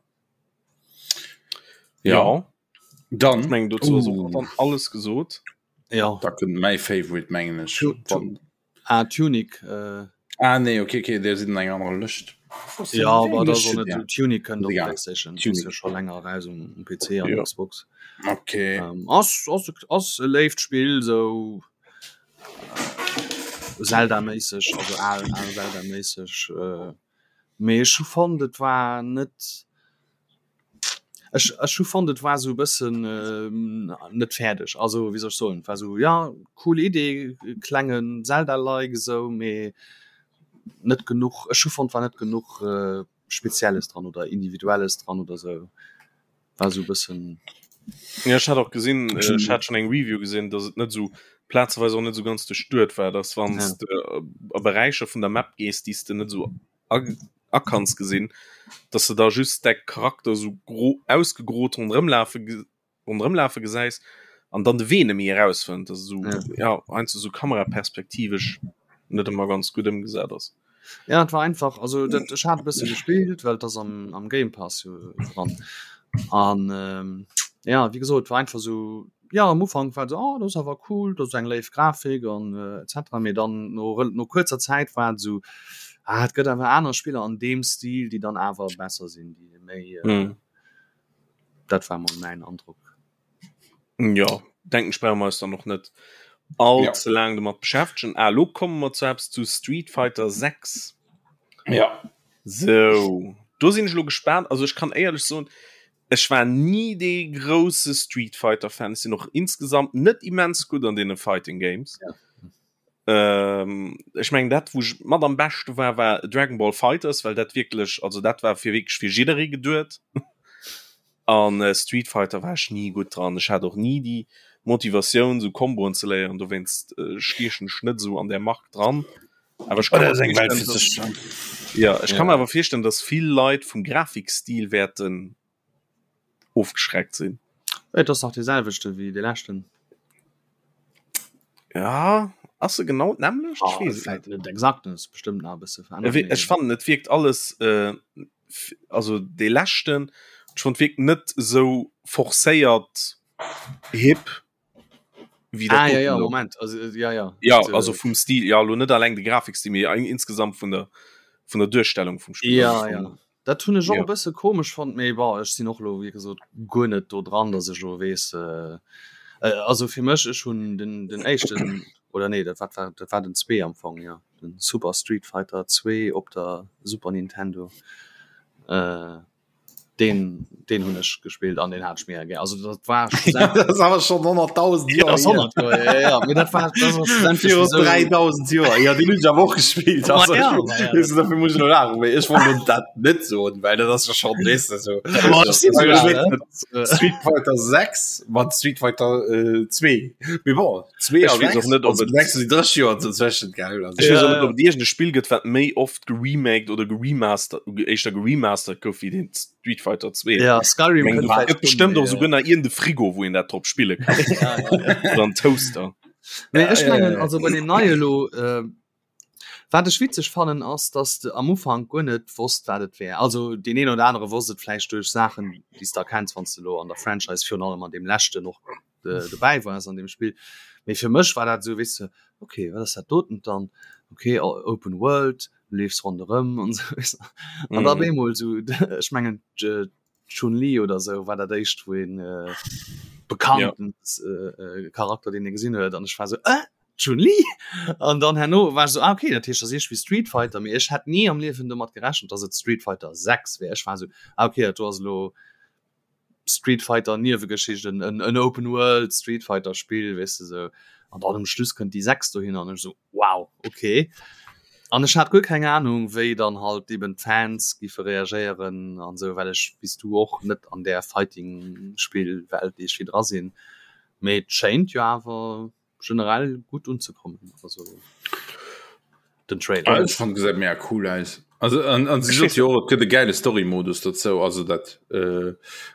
Ja, Ja, dann ech mengen dozou ass och Uh. dann alles gesot. Ja. da kënnt mäi Favorite mengen ech. Tu- tu- Wann- Ah, Tunic. Äh, Ah nee, okay, okay, der sinn eng aner Lëscht. ja, aber da Lëscht soll ja. net Tunic kënnt op Egal. PlayStation. Tunic. Ass jo scho länger raus um, um PC an Ja. Xbox. Okay. Ähm, ass, ass, ass e léift Spill, sou äh, Zelda-méisseg, also al, al Zelda-méisseg. Äh, mee ech hu fonnt, et war net. Ech ech hu fonnt et war sou e bëssen net fäerdeg, also wéi soll ech soen, et war sou ja cool Idee, klengen Zelda-like esou, mee net genuch, ech hu fonnt war net genuch Spezielles dran oder Individuelles dran oder sou, war sou e bëssen. Ja ech hat och gesinn, ech hat schonn eng Review gesinn, datt et net sou plazeweis och net sou ganz duerchduet war, datt wann s de a Beräicher vun der Map gees, déi s de net sou akanns gesinn, dass de da just däi Charakter sou gro ausgegrot ronderëm lafe. Ronderëmlafe gesäis an dann de Wee net méi erausfënnt, dass esou ja, ja heiansdo esou kameraperspektivesch net ëmmer ganz gutt ëmgesat ass. Ja, et war einfach, also dat, ech hat e bësse gespillt, well et ass am, am Game Pass jo dran. An ähm, ja, wéi gesot, war einfach esou, ja, am Ufank war et esou, oh, dat ass awer cool, dat ass eng léif Grafik an äh, etc. Mee dann no, no kuerzer Zäit war et esou, ah, et gëtt awer aner Spiller an deem Stil, déi dann awer besser sinn, déi méi äh, mm. Dat war mol mäin Androck. Ja denken ech brauche mer eis dann och net all ja. ze laang domat beschäftegen. Ah, lo komme mer zu eppes zu Street Fighter 6. Ja. So do sinn ech lo gespaant. Also ech kann éierlech soen, ech war nie dee grousse Street Fighter Fan. Ech sinn och insgesamt net immens gutt an deene Fighting Games. Ja. Ähm, ech mengen dat wou ech mat am beschte war war Dragon Ball Fighters, well dat wierklech also dat war fir wierklech fir jidderee geduet. An äh, Street Fighter war ech ni gutt dran. Ech hat och ni déi Motivatioun sou Komboen ze léieren, dowéinst äh, stiechen ech net sou an där Mark dran. Awer ech kann mir Oder eng Welt fir sech. Ja, ech kann mir awer virstellen, dass vill Leit vum Grafikstil wäerten ofgeschreckt sinn. Et ass dach dee selwechte wéi dee leschten. Ja, ass se genau d'nämmlecht? Ech weess et net. Net exakt, ass bestëmmt nach e bësse verännert. Ech ech fannen et wierkt alles äh, also dee leschten, ech fonnt wierkt net esou forcéiert hip wéi dat ah, ja, ja, Moment also, äh, ja, ja. Ja, also vum Stil ja lo net alleng de Grafikstil, mee insgesamt vun der vun der Duerstellung vum Spiel. Ja, ja. Dat hunn ech och e bësse komesch fonnt, mee bon, ech sinn och elo wéi gesot guer net do dran, datt ech elo weess, also fir mech, ech hunn den den éischten, oder nee, dat wat war dat war den zwee am Fong, jo, den Super Street Fighter 2 op der Super Nintendo. Deen deen hunn ech gespillt an deen hat ech mega gär. Also dat war schlussendlech. Dat ass awer schonn 100.000 Joer hier. 100 Joer, ja, ja. Mee dat war dat ass schlussendlech Viru 3.000 Joer. Jo, deen hunn ech awer och gespillt. Ma also, ja, ma ja. Weess du, dofir muss ech elo laachen, mee ech wollt elo dat net soen, well dat ass jo schonn, weess de, sou. Ma ech sinn esou al, ne? Street Fighter 6 mat Street Fighter 2. Mee bon, 2 a Ech weess 6, och net, ob also et. 6 si 30 Joer dozwëschent, gell? Also. Ech weess och net, ob et iergend e Spill gëtt, wat méi oft geremaked oder geremastert éischter geremastert gouf wéi den Street Fighter 2 ja Skyrim Meng, gëtt bestimmt och souguer nach iergend e Frigo wou een dat drop spille kann ja, ja, ja. oder en Toaster Nee, ech mengen also bei dem neie lo äh, wat ech witzeg fannen ass dass de am Ufank guer net wosst wat et wär also deen een oder anere wosst et vläicht duerch Saachen déi s de erkenns wann s de lo an der Franchise virun allem an deem leschten och äh, dobäi wars an dem Spill mee fir mech war dat sou weess de okay wat ass dat doten dann okay Open World du leefs ronderëm an sou weess de an da op eemol sou ech mengen d'Chun-Li oder sou war dat éischt wou een äh, bekannten ja. äh, Charakter deen ee gesinn huet an ech war sou äh Chun-Li an dann herno war ech sou ah okay dat heescht dat ass iergendwéi Street Fighter mee ech hätt ni am Liewen domat gerechent dass et Street Fighter 6 wär ech war sou ah okay dat do ass elo Street Fighter Niewegeschicht en en Open World Street Fighter Spill weess de sou an dann um Schluss kënnt déi 6 dohinner an ech sou wow okay an ech hat guer keng Ahnung wéi dann halt eben d'Fans giffe reagéieren an sou well ech wéi s du och net an där Fighting Spill Welt iergwéi dra sinn mee et schéint jo awer generell gutt unzekommen also den Trailer. Ah, ech fand gesäit mega cool aus. Also an, an si sot jo och, et gëtt e gäile Story-Modus dozou. Also dat äh,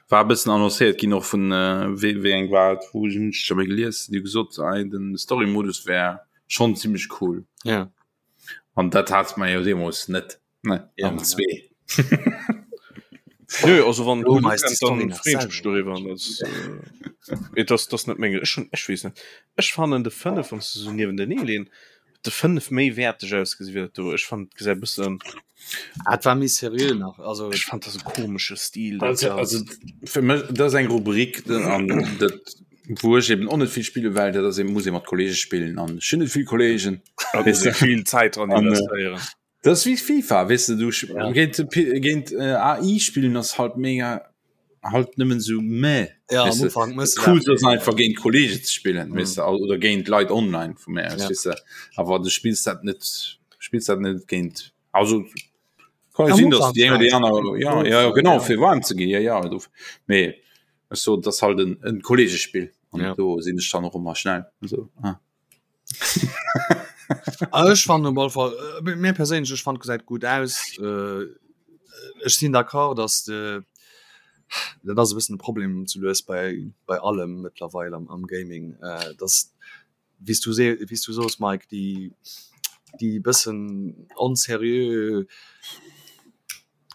war e bëssen annoncéiert ginn och vun äh, wéi, wéi eng war et, wou hunn ech scho méi gelies, déi gesot ei den Story-Modus wär schonn zimmlech cool. Ja. An dat hat mer jo deemools net. Ne, ja, am zwee. Nö, also wann Lo gut meist die ukënnt, Story dann nach freeën ech mech selwer. doriwwer. An das, äh, et ass, das net meng ech hun, ech weess net. Ech fannen de 5, wann s de sou niewentenee leen, de 5 méi wäerteg ausgesi wéi dat do. Ech fannen et gesäit e bëssen, Ah, et war méi seriö nach, also ech fand dat e komesche Stil dat Also, ass. also fir mech dat ass eng Rubrik den- an dat wou ech eben och net vill spille well dat ass eben muss ee mat Kollege spillen an ech hunn net vill Kollegen. Da muss ee vill Zäit dran An, äh, investéieren. Dat ass wéi FIFA, weess de, du Ja. géint, géint äh, AI spillen ass halt mega halt nëmmen sou meh. Ja, am Weess de, Ufank mëss du cool dat. ass einfach géint Kollege ze spillen, Mhm. weess de, oder géint Leit online vu mär aus, Ja. weess de. Awer du spills dat net, spills dat net géint, also kann jo Am sinn, dass Ufank déi eng oder déi vläicht. aner, ja, ja, ja, genau, fir waarm ze ginn, ja, ja, do, mee ech soen, dat ass halt en, en Kollegespill an Ja. do sinn ech dann och ëmmer schnell, also, ah. Ah, ech fannen op alle Fall äh, mir perséinlech ech fand gesäit gut aus äh, ech sinn d'accord dass de. Dat ass e bëssen de Problem zu lues bei bei allem mëttlerweil am am Gaming, äh, dass wéi s du se wéi s du soos Mike, déi déi bëssen onseriö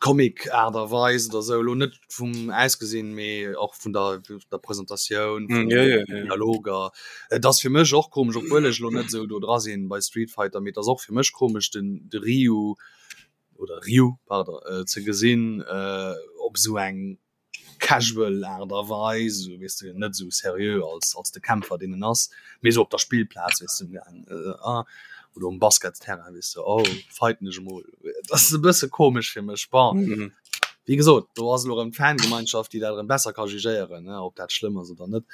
Comic Aart a Weis oder sou, elo net vum Ausgesinn, mee och vun der der Presentatioun, vun den Dialoger. Et ass fir mech och komesch, obwuel ech elo net esou do dra sinn bei Street Fighter, mee et ass och fir mech komesch den de Ryu oder Ryu, pardon, ze gesinn op esou eng casual Aart a Weis, esou weess de, net esou seriö als als de Kämpfer deen en ass, mee esou op der Spillplaz weess de, ah oder um Basketsterrain weess de, oh fighten ech emol. Dat ass e bësse komesch fir mech. Bon, wéi gesot, do ass elo erëm d'Fangemeinschaft, déi dat erëm besser ka jugéieren, ne, ob dat schlëmm ass oder net.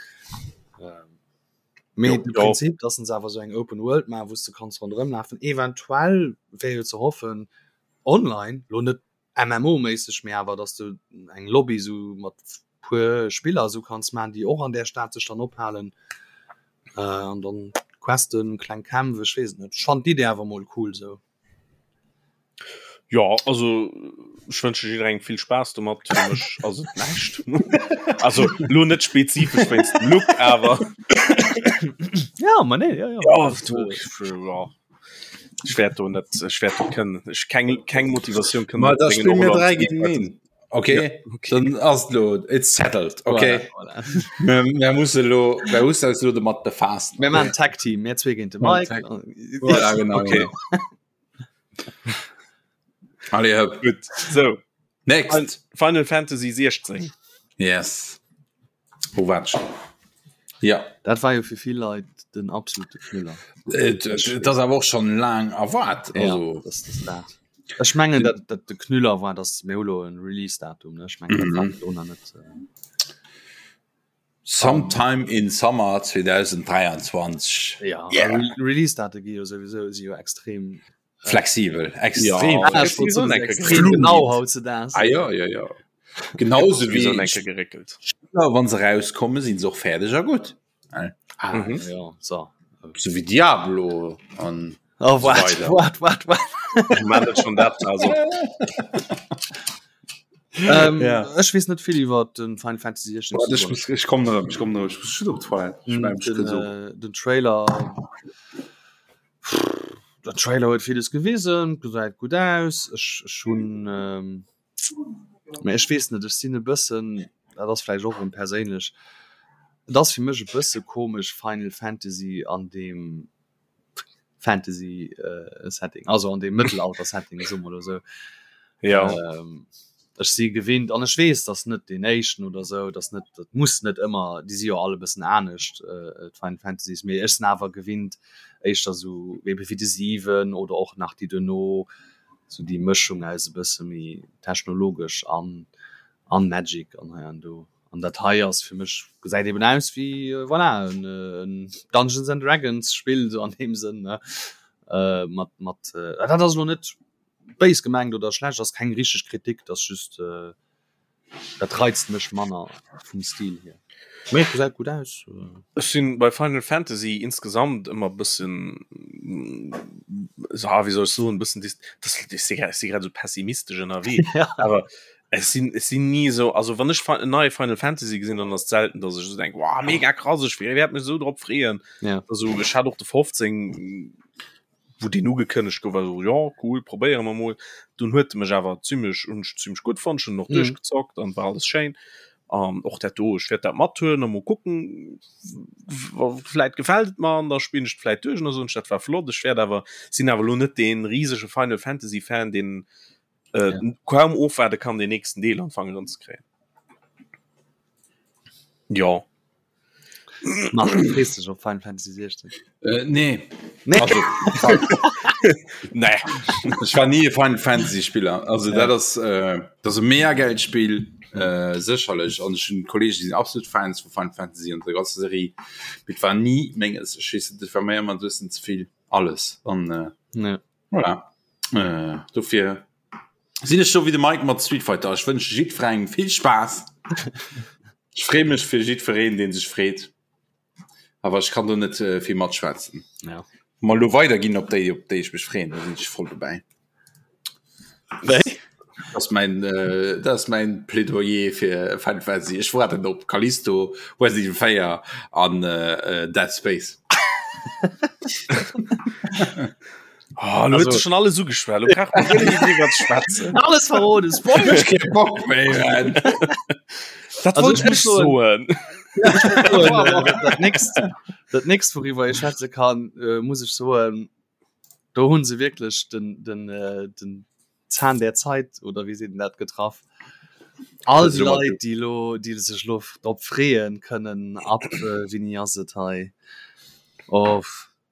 Mee de Prinzip, dass se awer esou eng Open World maachen, wou s de kanns ronderëm lafen, eventuell wär jo ze hoffen online, lo net MMO-méisseg, mee awer dass du eng Lobby sou mat puer Spiller sou kanns man, déi och an där Stad sech dann ophalen äh, an dann Questen, kleng Kämpf, ech weess et net. Ech fannen d'Idee awer mol cool sou. Jo, also ech wënsche jidderengem vill Spaass domat. Fir mech ass et näischt. Also lo net spezifesch wéinst dem Look, awer Ja, ma nee, ja, ja. Ja, du, ja. Ech wäert do net ech wäert do kënnen ech keng keng Motivatioun kënnen Ma da spille mir 3 géint een. Okay, ja, okay. Dann ass lo it's settled. Okay. Voilà, voilà. Mir, mir musse lo mir musse eis lo domat befaassen. Mir maachen Tag Team, mir zwee géint de Mike. Voilà, genau. Okay. Allez, hop. Gutt. So. Next. Final Fantasy 16. Yes. Wo war schon? Ja. Dat war jo fir vill Leit den absolute Knüller. Äh, dat ass awer och schon laang erwaart. Ja, Also, das, das dat. Ech mengen dat, dat de Knüller war, dass mir hu lo en Release-Datum, ne? Ech mengen, dat war Mhm. virdrun nach net. Äh, sometime in Summer 2023. ja, Yeah. Re Release-Date gi jo souwisou si jo extrem Flexibel, extrem Ja, Ah, ech wollt soen, extrem genau hautzudags. Ah, ja, ja, ja. Genauso Wéi wéi enke geréckelt. Spiller, wann se rauskommen, sinn se och fäerdeg a gutt. Ah, Mhm. ja, so. So wéi Diablo an Oh, so wart, weiter. wart, wart, wart. Ich meine das schon dat also. Ähm, Ja. Ech weess net vill iwwer den Final Fantasy 16 Warte, ich muss, ich komm erëm, ich komm erëm, ich muss schon op d'Toilette. Ich mein, ich den, kann so. äh, den Trailer Der Trailer huet villes gewisen, gesäit gutt aus. Ech ech hunn ähm, mä ech weess net, ech sinn e bëssen, dat ass vläicht och erëm perséinlech, et ass fir mech e bësse komesch Final Fantasy an deem Fantasy äh, Setting, also an deem Mëttelalter-Setting, soe mer elo esou. Ja. Ähm, ech si gewinnt an ech weess, dass net deen éischten oder sou, dass net, dat muss net ëmmer, déi si jo all e bëssen anescht, äh, d'Final Fantasies, mee ech sinn awer gewinnt éischter sou ebe wéi de 7 oder och nach déi duerno, sou déi Mëschung aus e bësse méi technologesch an an Magic an hei an do. An dat hei ass fir mech, gesäit eben aus wéi, voilà, en en Dungeons and Dragons Spill sou an deem Sënn, ne, äh, mat mat, dat ass elo net Béis gemengt oder schlecht ass keng richteg Kritik, dat ass just dat reizt mech manner vum Stil hier. Mee et gesäit gutt aus. Ech sinn bei Final Fantasy insgesamt ëmmer bëssen ah wéi soll ech soen bëssen dis das ech si grad si grad esou pessimistesch ënnerwee awer ech sinn ech sinn ni esou also wann ech en neie Final Fantasy gesinn dann ass et selten dass ech esou denk wow mega krass ech wäert mech esou drop freeën also ech hat och de 15 wou deen ugekënnegt gouf, war esou, jo cool, probéiere mer mol. Dunn huet e mech awer zimmlech, hunn ech zimmlech gutt fonnt, ech hunn en och duerchgezockt an war alles schéin. An och dat do, ech wäert dat mathuelen a mol kucken, vläit gefält et mer an da spillen ech et vläit duerch an da soen ech, dat war flott. Ech wäert awer, sinn awer elo net dee risege Final Fantasy Fan, deen kaum ofwaarde kann, deen nächsten Deel an d'Fanger eranzekréien. Jo. Marc, du frees dech op Final Fantasy 16? Äh, nee. Nee. Also, nee. Ech war nie e Final Fantasy Spiller. Also ja. dat ass äh, dat ass e mega geilt Spill äh, sécherlech an ech hunn Kollegen, déi sinn absolut Fans vu Final Fantasy an der ganzer Serie. Mee et war nie menges. Ech weess net, et war mir ëmmer e bëssen ze vill alles an äh, ja. voilà. Äh, dofir Sinn ech sou wéi de Mike mat Street Fighter. Ech wënsche jiddwerengem vill Spaass. Ech freeë mech fir jiddwereen, dee sech freet. Awer ech kann do net äh, vill matschwätzen. Ja. Wa mer elo weiderginn op déi, op déi ech mech freeën, da sinn ech voll dobäi. Wéi? Das mein äh, das mein Plädoyer fir Final Fantasy. Ech warten op Callisto, Resident Evil 4 an äh, äh, Dead Space. Oh, lo huet schon alles ugeschwell. Lo brauch man guer net méi driwwer ze schwätzen. Alles verroden, Spoiler! Ech kee Bock méi, man. Dat Also, wollt ich muss ech soen. Dat nächst, dat nächst worüber ich schwätze kann, äh, muss ich soen, do hunn se wierklech den, den, äh, den Zahn der Zeit oder wéi seet een dat getraff. All déi Leit, déi lo, déi sech lo drop freeën kënnen ab, äh, wéini ass et hei? Oh,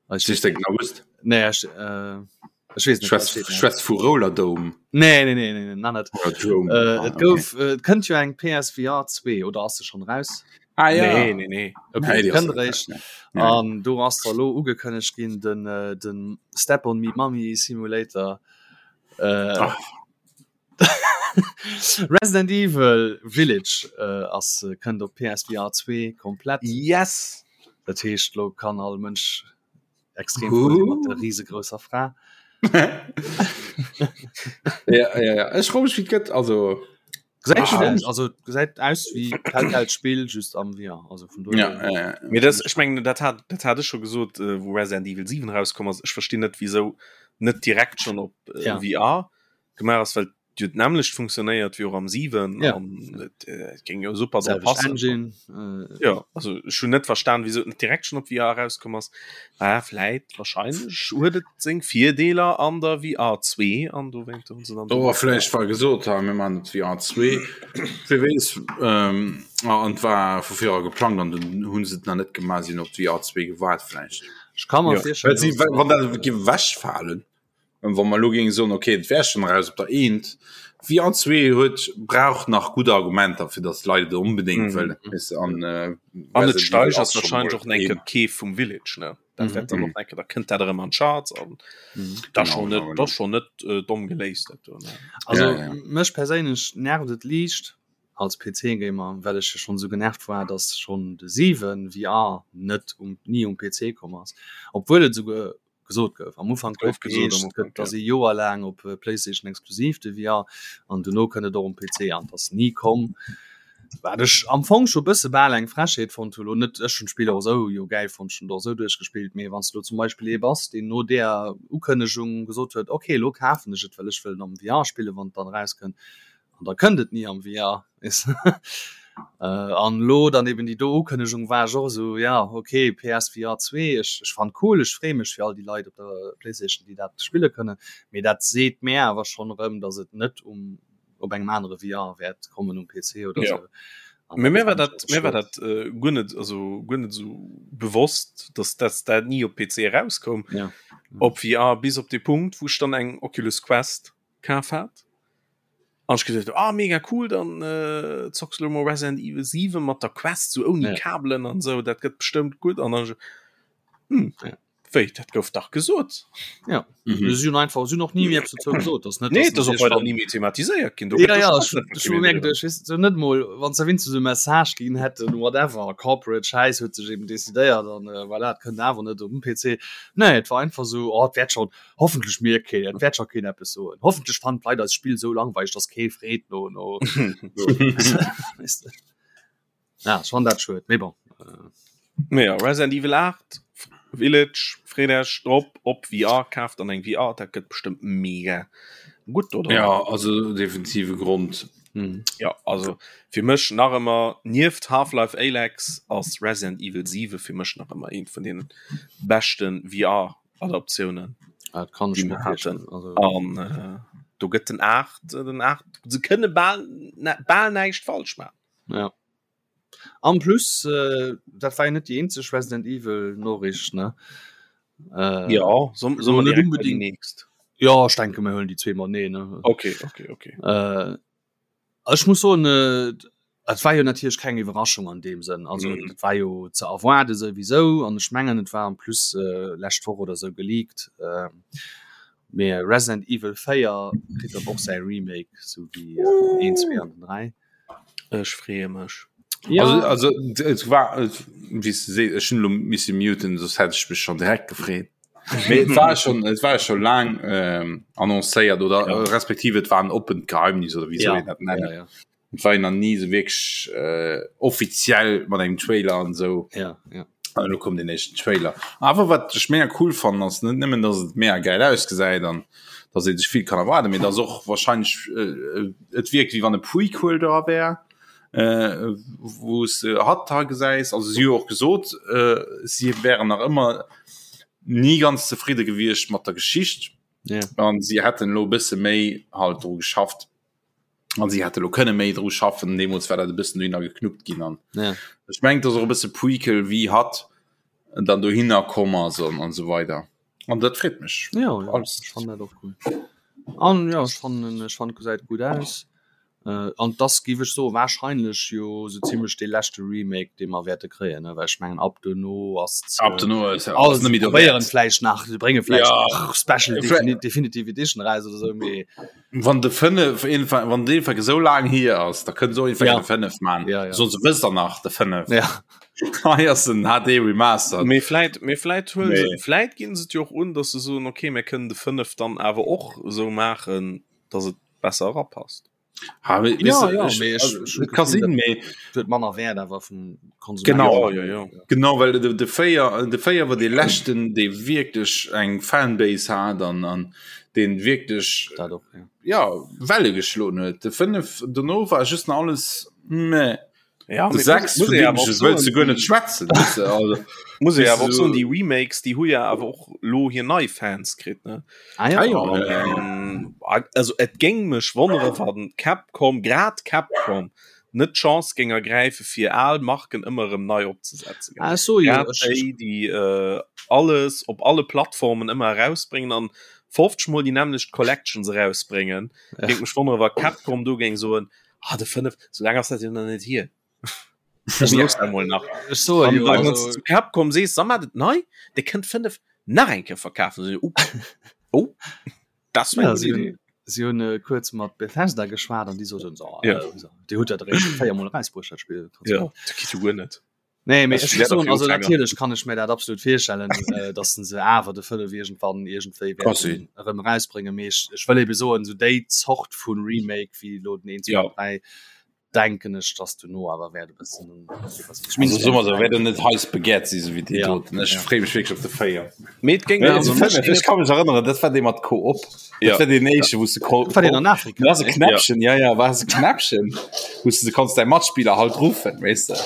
Ech weess den August. Nee, ech, äh, ech weess net. Schwätz, schwätz vu Rollerdome. Nee, nee, nee, nee, nee, net. Drome. Äh, ah, et gouf, okay. äh, kënnt jo eng PSVR 2 oder ass se schon raus? Ah, ja. Nee, nee, nee. Okay, nee, kënnt eréischt. An do ass da lo ugekënnegt ginn den, äh, den Step on Me Mommy Simulator. Äh, Resident Evil Village äh, ass äh, kënnt op PSVR 2 komplett. Yes! Dat heescht lo kann all Mënsch extrem frou sinn mat der riesegrousser Fra. Ja, ja, ja. Ech froe mech, wéi et gëtt. Also, Gesäit Ah. schön aus, also gesäit aus wéi Telltale Spill just am VR. Also vun ja, dohier. ja, ja. Mee das, ech mengen, dat hat, dat hat ech scho gesot, äh, wou Resident Evil 7 rauskomm ass. Ech verstinn net, wieso net direkt schon op äh, Ja. VR gemaach ass, well jo d'nämmlecht funktionéiert wéi och am 7 Ja. an et äh, géing jo super drop Selwecht passen. Engine. Äh, Ja, also ech hunn net verstan, wieso et net direkt schon op VR rauskomm ass. Ah, vläit, wahrscheinlech huet et seng Virdeeler an der VR 2 an dowéint hunn se dann Oder vläicht war gesot ha mir man et VR 2 Wie weess ähm, ah, an war vu virer geplangt an den hunn se et nach net gemaach sinn op d'VR 2 gewaart vläicht. ech kann mer Ja. virstellen, Well si dass- wann dat géif ewechfalen, wa mer elo géinge soen, okay, et wär schonn eraus op der eent, VR 2 huet brauch nach gutt Argumenter, fir datt d'Leit et onbedéngt Mhm. wëllen, weess de, an äh, An et Resident Evil steigert ass schon wahrscheinlech mol och enke een. d'Keef vum Village, ne? Dat Mhm. wäert dann Mhm. och enke, da kënnt dat erëm an d'Charts an Mhm. da Genau, schon net, genau, da genau. schon net äh, domm geléist dat do, ne? Also Ja, ja. mech perséinlech nervt et liicht als PC-Gamer, well ech jo schon esou genervt war, dass schon de 7 VR net um ni um PC komm ass, obwuel et esouguer gesot gouf. Am Ufank Gouf gouf gesot am geheescht, Ufank, gëtt ass ja. ee Joer laang op PlayStation exklusiv de VR an dono kënnt et och um PC an et ass ni komm. Wat ech am Fong scho bësse bal eng Frechheet fonnt hu lo net ech hunn d'Spill och esou jo gäil fonnt, ech hunn et och esou duerchgespillt, mee wann s de lo zum Beispill ee bass, deen no där Ukënnegung gesot huet, ok lo kafen ech et, well ech wëll en am VR spillen, wann et dann erauskënnt, an da kënnt et ni am VR, weess de. An elo dann eben déi do Ukënnegung war ech och esou, ja ok PSVR 2, ech ech fannen cool, ech freeë mech fir all déi Leit op der Playstation, déi dat spille kënnen, mee dat seet mär awer schonn erëm, datt et net um op engem anere VR wäert kommen um PC oder Ja. sou. An Mee mir war fand ich dat, awer mir war schued. dat äh, guer net, also guer net esou bewosst, dass dass dat ni op PC erauskoum. Ja. Op VR bis op de Punkt, wou ech dann eng Oculus Quest kaf hat. An ech geduecht, ah mega cool, dann äh, zocks du lo mol Resident Evil 7 mat der Quest, sou ouni Ja. Kabelen an sou, dat gëtt bestëmmt gutt. An dann hm, Ja. wéi, dat gouf dach gesot. Ja. Mhm. Si hunn einfach si hunn och ni méi eppes dozou gesot, dass net Nee, dass dat ass och natierlech weider wann- ni méi thematiséiert ginn. Do Ja, gëtt ja, do ech schonn net ech hu méi mir drüber. geduecht, weess du, net mol wann se wéinstens e Message ginn hätten, whatever, corporate Schäiss huet sech eben decidéiert an äh, voilà, et kënnt awer net um PC. Nee, et war einfach sou, oh, et wäert schon, hoffentlech mierkt keen, et wäert scho keen eppes soen. Hoffentlech fannen d'Leit eist Spill sou langweileg, dass kee freet no no. Weess du. Ja, ech fannen dat schued, mee bon. Äh, Mee ja, Resident Evil 8, Village, freet Iech drop op VR, kaaft dann eng VR, dat gëtt bestëmmt mega gutt, oder? Ja, also definitive Grond. mhm. Ja, also fir mech nach ëmmer nieft Half-Life Alyx ass Resident Evil 7 fir mech nach ëmmer eent vun deenen beschten VR-Adaptiounen, Ah, dat kann ech déi mir mer virstellen. haten. Also, An äh, do gëtt den 8, den 8, se kënne bal, bal näischt falsch maachen. Ja. En plus äh, dat war jo net déi eenzeg Resident Evil Noriicht ne. Äh, Ja, soll so soll mer net direkt bei déi unbedingt. nächst? Ja, ech denke mir huelen déi zwee mateneen ne. Okay, okay, okay. Äh, ech muss soen, äh, et war jo natierlech keng Iwwerraschung an deem Sënn. Also Mhm. et war jo ze erwaarde souwisou an ech mengen et war en plus äh, lescht Woch oder sou geleakt. Äh, mee Resident Evil 4 kritt dann och säi Remake, sou wéi äh, 1, 2 an den 3. Ech freeë mech. Ja. Also, also et war et, wéi s de sees, ech hunn elo misse muten, soss hätt ech mech schonn direkt gefreet. Mee et war schon et war schon lang ähm, annoncéiert oder ja. respektiv et war en oppent Geheimnis oder wéi soll ja. een dat nennen. Ja, ja. Et war nach nie so wirklich äh, offiziell mat engem Trailer an so. Ja, ja. An elo koum den éischten Trailer. Awer wat ech mega cool fannen ass net nëmmen, dass et mega geil ausgesäit an dass ee sech vill kann erwaarden, mee dass och wahrscheinlech äh, et wierkt wéi wann e Prequel dra wär, äh, wou s de hatt da gesäis. Also si hu och gesot, äh, si wären nach ëmmer ni ganz zefridde gewiescht mat der Geschicht Ja. an si hätten elo e bësse méi halt dru geschafft. An si hätte lo kënne méi dru schaffen, deemools war dat e bëssen dohinner geknuppt ginn an ja. ech mengt ass och e bësse Prequel wéi hatt dann dohinner komm ass an an esou weider an dat freet mech. Ja, ja alles. Ech fannen dat och cool. An ja ech fannen ech fand gesäit gutt aus. Äh, an das giff ech soen wahrscheinlech jo sou zimmlech dee leschte Remake dee mer wäerte kréien ne, well ech mengen ab dono ass Ab dono ass alles net méi probéieren vläicht nach se brénge vläicht ja. nach Special Definitive Edition raus oder sou mee Wann de 5 wann de Fall esou laang hier ass, da kënnt so ja. de 5 man ja, ja. so wëss der nach de 5 ja. Hei ass den HD Remaster. Mee vläit mee vläit huelen se vläit ginn se et jo och un, datt se soen okay mir kënnen de 5 dann awer och esou maachen, datt et besser erapasst. Ha, ja, weißt du, ja, ich, mee ech, also, ech hun kann d'Gefill, sinn, mee huet manner Wäert awer vum Konsument. Genau. Ja, ja, ja. Genau, well de, de 4 de 4 war dee leschten, dee wierklech eng Fanbase hat an an deen wierklech Dat och, ja. ja Welle geschloen huet. De 5 dono war just nach alles meh. Ja, De mee 6 muss vun ee deem awer och ech wëlls du soen, guer net déi- schwätzen, weess de, also Muss ee weess awer du och soen, so déi Remakes, déi hu ja awer och lo hir nei Fans kritt, ne? Ah, ja. Ah, ja, ja, ja. Ähm, also et géing mech wonnere wann Capcom, grad Capcom, net d'Chance géing ergräife fir al Marken ëmmer erëm nei opzesetzen. Ah, ech soe jo, Grad ech, déi, déi äh, alles op alle Plattformen ëmmer erausbréngen an 50 mol déi nämmlecht Collections erausbréngen. Ja. Géing mech wonnere wa Capcom do géing soen, ah de 5, sou laang ass dat jo nach net hier. Ech Ja. looss dat mol nach. ech soe An jo, wann also, du zu Capcom sees, sa mat et nei, Dir kënnt 5 nach eng Kéier verkafen. Se, oh, oh, das war ja, eng si gutt hunn, Idee. si hunn äh, kuerz mat Bethesda geschwat an déi soten so, Ja. äh, so, Dir hutt dat eréischt véiermol erausbruecht, dat Spill. Ja, dat geet jo guer net. Nee, mee Das ech wär soen, dafür also Ufänger. natierlech kann ech mir dat absolut virstellen, äh, dass se awer de 5 iergendwann iergendwéi Kann wäerten sinn. erëm erausbréngen. Mee ech, ech wëll ebe soen, sou déi Zort vu Remake wéi elo den 1, 2, Ja. 3, denken ech, dass duerno awer wäert e bëssen Also soen mer sou, wäert en net heiß begehrt si sou wéi déi Ja, doten. Ech ja. freeë mech wierklech op de 4. Mee et géing Mee also de mech 5, géing ech ka mech erënneren, dat war dee mat Koop. Ja. Dat war deen éischte, wou s de Ko Dat war deen an Afrika, Dat ass e ne? Knäppchen, ja, ja, war e Knäppchen, wou s de konns däi Matspiller halt ruffen, weess de.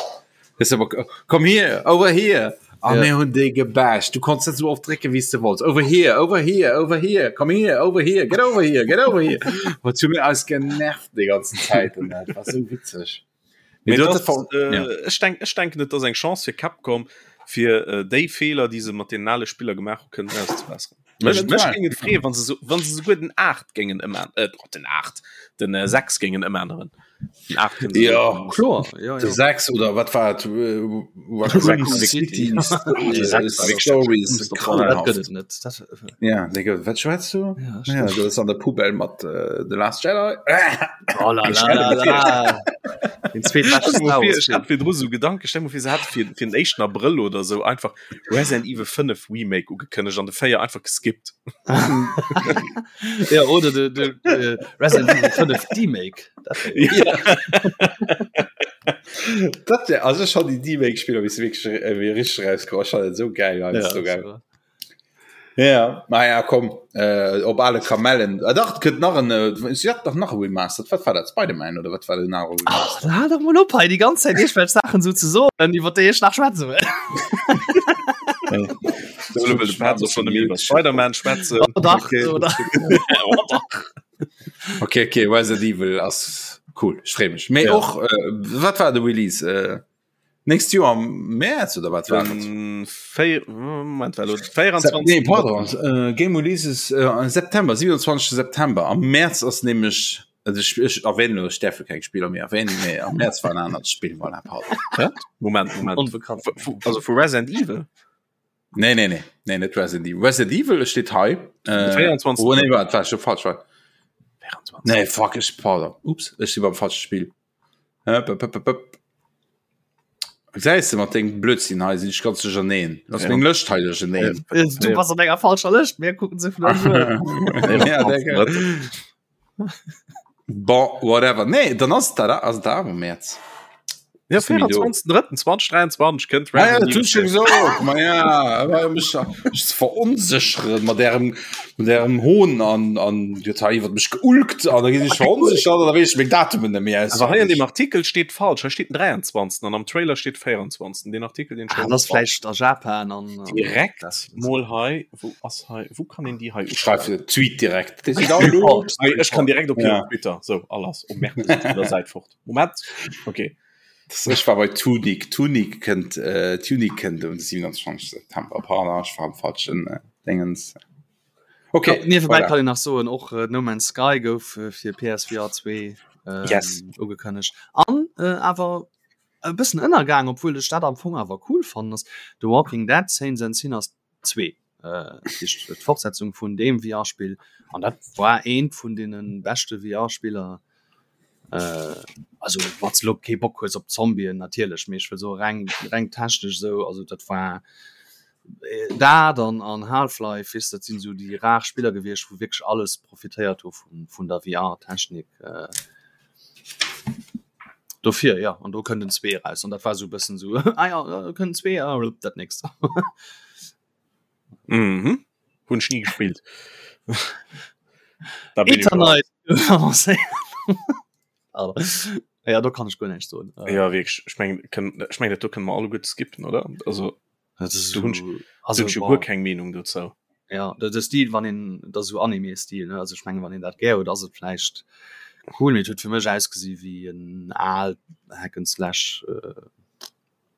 Weess de, komm hier, over here. An Ja. mir hunn déi gebasht. Du konns net sou oft drécken, wéi s de wollts. Over here, over here, over here, come here, over here, get over here, get over here. Wat hu mir eis genervt déi ganzen Zäit an dat war sou witzeg. Mee Mee du das, huet dat äh, ja. ech denk, ech denken et ass eng Chance fir Capcom fir äh, déi Feeler, déi se mat den ale Spiller gemaach hu kënnen auszebesseren. Mech, mech Eventuell. géing et freeën, wann se so, wann se souguer den 8 géingen ëmän äh, den 8, den äh, 6 géingen ëmänneren. Den 8 kënnen se Ja. och- Kloer, ja, De ja. 6 oder wat war et? Raccoon City City. Stories Dat grauenhaft. gëtt et net. Dat, Ja, Digga, wat schwätzt du? ja, Ja, stimmt. du ass an der Poubelle mat äh, The Last Jedi. Oh la la la la. Den zweetbeschte Stell dir Star mal vir, Wars ech Film. hat virdru sou Gedanken, stell dir mal vir, se hätte fir, fir den éischten Abrëll oder sou einfach Resident Evil 5 Remake ugekënnegt an de 4 einfach geskippt. Ja, oder de, de, de Resident Evil 5 Demake. Dat wär jo- Ja. Dat wär, also schon die Demake-Spieler, wie se wirklich äh, wie richtig rauskommen, schon so geil, ja, Ja, so geil. das war- Ja, naja, komm, äh, op alle Kamellen. Ah, dach, et gëtt nach en, äh, si hat dach nach e Remaster. Wat war dat? Spider-Man oder wat war den anere Ach, Remaster? hal doch mol op hei déi ganz Zäit iergendwelch Saachen sou ze soen, iwwer déi ech nach schwätze wëll. So, elo wëll de Pat och schon nëmme iwwer Spider-Man schwätzen. Oh dach, Okay. oh dach. Oh dach. Okay, okay, Resident Evil ass cool, ech free mech. Mee Ja. och, äh, wat war de Release? Äh, Nächst Joer am März oder wat war et? Véi, Moment, war lo 24. Nee, pardon, äh, Game Releases äh, September, 27. September. Am März ass nämlech, also ich, ich erwähne nur, ich darf keng Spieler méi erwähnen, mee am März war en anert Spill, voilà, pardon. Moment, Moment. Onbekannt. Vu, also vu Resident Evil? Nee, nee, nee, nee, net Resident Evil. Resident Evil steet hei. Äh, 24. Oh, nee, wat war schon falsch. War. 24. Nee, fuck, ich, pardon. Ups, ich si beim falsche Spiel. Äh, p, p, p, p. Gesäis de, mat dengem Blödsinn hei sinn ech ganz duercherneen. Ass meng Lëscht hei duercherneen. Du bass an enger falscher Lëscht, mir kucken se vun Ja, Bon, whatever. Nee, dann ass dat ass dat awer Mäerz. Ja, 24.03.2023 kënnt ah, ja, dat schon gesot. Ma ja, awer mech mech ze veronsécheren mat ärem mat ärem Hohn an an Dir hutt hei iwwer mech geulkt an da ginn ech veronsechert an da weess ech meng Datumen net méi aus. Awer hei an dem Artikel steet falsch, hei steet den 23. an am Trailer steet 24. Den Artikel den ah, das vläicht a Japan an direkt mol hei wou ass hei wou kann een déi hei Schreif Tweet direkt. Ech kann direkt op ja. Twitter so alles um der Säit fort. Moment okay. Ech war bei Tunic Tunic kënnt äh, Tunic kënnt um 27. September pardon, ech war am falschen äh, Dingens. Okay ja, niewebäi kann ich nach soen och äh, No Man's Sky gouf äh, fir PSVR 2 ähm, yes. ugekënnegt an äh, awer e bëssen ënnergaang, obwuel ech dat am Fong awer cool fannen ass The Walking Dead Saints and Sinners 2 d'Fortsetzung vun deem VR-Spill an dat war eent vun deene beschte VR-Spiller. Also wann s de lo kee Bock hues op Zombien natierlech, mee ech wëll soe reng reng technesch esou, also dat war dat an an Half-Life, weess de, dat sinn esou déi rar Spiller gewiescht, wou wierklech alles profitéiert hu vun vun der VR-Technik. Dofir ja an do kënnt en zwee eraus an dat war sou e bëssen sou ah ja do kënnt en zwee ah dat nächst. Mhm. Hunn ech ni gespillt. Da bin ich raus. Eternite Ja do kann ech guer näischt soen. Ja wierklech, ech mengen kënn ech mengen dat do kënne mer alleguerte skippen oder? Also Dat ist do hunn ech also hunn ech jo guer keng Meenung dozou. Ja de de Stil wann een dat ass esou Anime-Stil ne, also ech mengen wann een dat gär huet ass et vläicht cool, mee et huet fir mech ausgesi wéi en aalt Hack and Slash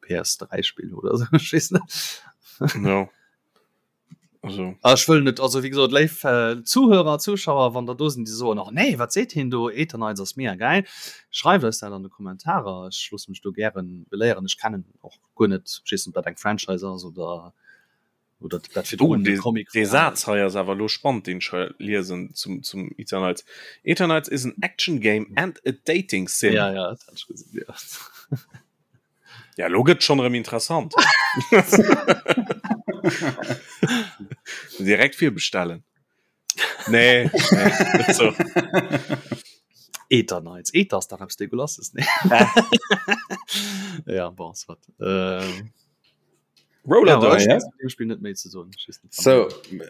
PS3 Spill oder esou, ech weess net. Jo also. Ah ech wëll net, also wéi gesot léif Zuhörer, Zuschauer, wann der do sinn déi soen, och nee wat seet hien do, Eternights ass mega gäil, schreift eis dat an de Kommentarer, ech loosse mech do gären beléieren, ech kennen och guer net, ech weess net ob dat eng Franchise ass oder oder dat fir oh, de Comic de Saz hei ass awer lo spannend den ech hei liesen zum zum Eternights. Eternights is an action game and a dating sim. Ja ja dat hat ech gesinn ja. Ja lo gëtt schon erëm interessant. Direkt virbestellen. Nee, nee net so. Eternights Eter ass dach eppes Degulasses nee? ja bon soit. Ähm, Roller ja, Dome. ja, dem Spiel net méi ze soen. So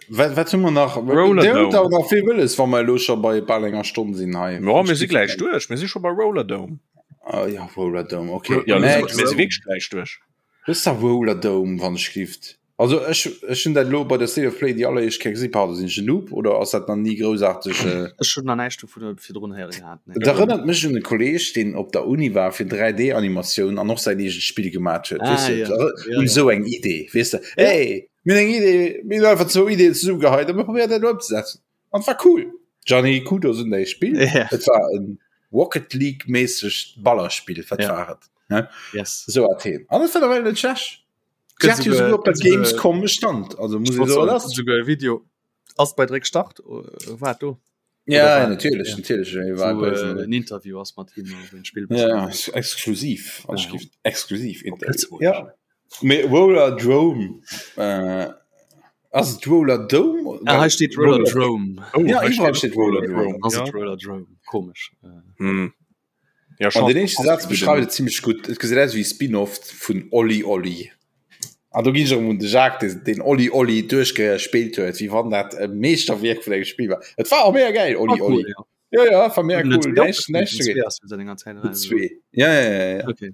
wat, wat hu mer nach Roller Dir hutt Dome. awer nach vill wëlles wa mer elo scho bei bal enger Stonn sinn hei. Ja, mir si gläich duerch. Mir si scho bei Roller Dome. Ah, ja Roller Dome okay. Ja, mir Next. si wierklech gläich duerch. Wësst der Roller Dome wann ech gift Also ech ech hunn dat elo bei der State of Play déi alleréischt Kéier gesinn. Pardon, sinn ech en Noob oder ass dat nach ni groussaarteg? Äh Ech hunn nach näischt dovun virdrun héiere gehat, nee. Dat erënnert mech un e Kolleeg, deen op der Uni war fir 3D-Animatioun an och säin eegent Spill gemat huet. Ah, Weess de, ja. Ja, un ja. esou eng Idee, weess de. Hey, mir hunn eng Idee, mir hunn einfach zwou Ideeën zesummegeheit a mir probéieren dat elo ëmzesetzen. An et war cool. Gianni, Kudos un däi Spill. Ja. Et war en Rocket League-méissegt Ballerspill, wat Ja. war et? Ne? Yes. Esou hat heen. An et war nawell net schlecht. Gëtt souguer op der Gamescom stand also muss ich so das sogar e Video ass bei Dréck start äh, war do ja, war, natürlich ja. natürlich war wo, äh, en Interview ass mat him den Spiel ja, exklusiv ja. exklusiv ja. Me Roller Drome äh, ass Roller Dome ah, steht Roller Drome oh, ja, steht Roller Drome ja. Roller Drome komisch äh. hm. Ja, An den éischte Saz beschreift et zimmlech gutt, Et gesäit aus wéi e Spin-off vun Olli Olli. An do ginn ech erëm un de Jacques, dee deen Olli Olli duerchgespillt huet, wéi wann dat e Meeschterwierk vun engem Spill war. Et war och mega gäil, Olli War cool, Olli. ja. Ja, ja, war mega Den cool. zwee Näischt, näischt den dogéint. zwee ass jo seit enger Zäit Den eraus. zwee. Ja, ja, ja, ja. Okay.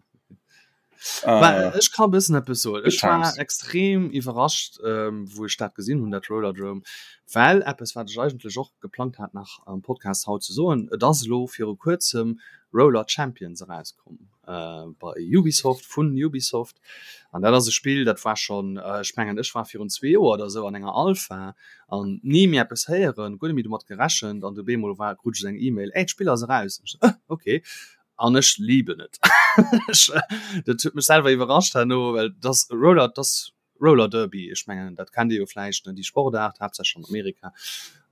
Mä Äh, ech kann e bëssen eppes soen. Good Ech war times. extrem iwwerrascht, ähm, wou ech dat gesinn hunn, dat Rollerdrome, well eppes, wat ech eigentlech och geplangt hat nach am Podcast haut ze soen, et ass elo viru kuerzem Roller Champions erauskomm äh, bei Ubisoft, vun Ubisoft. An dat ass e Spill, dat war schonn, ech mengen, ech war virun zwee Joer oder esou an enger Alpha an ni méi eppes héieren, guer net méi domat gerechent an du bemol war, krut ech eng E-Mail, Ey, d'Spill ass eraus. An ech sou, Okay. An ech liben et. Dat huet mech selwer iwwerrascht herno, well dass Roller, dass Roller Derby, ech mengen dat kennt Dir jo vläicht, ne, déi Sportaart, haaptsächlech an Amerika.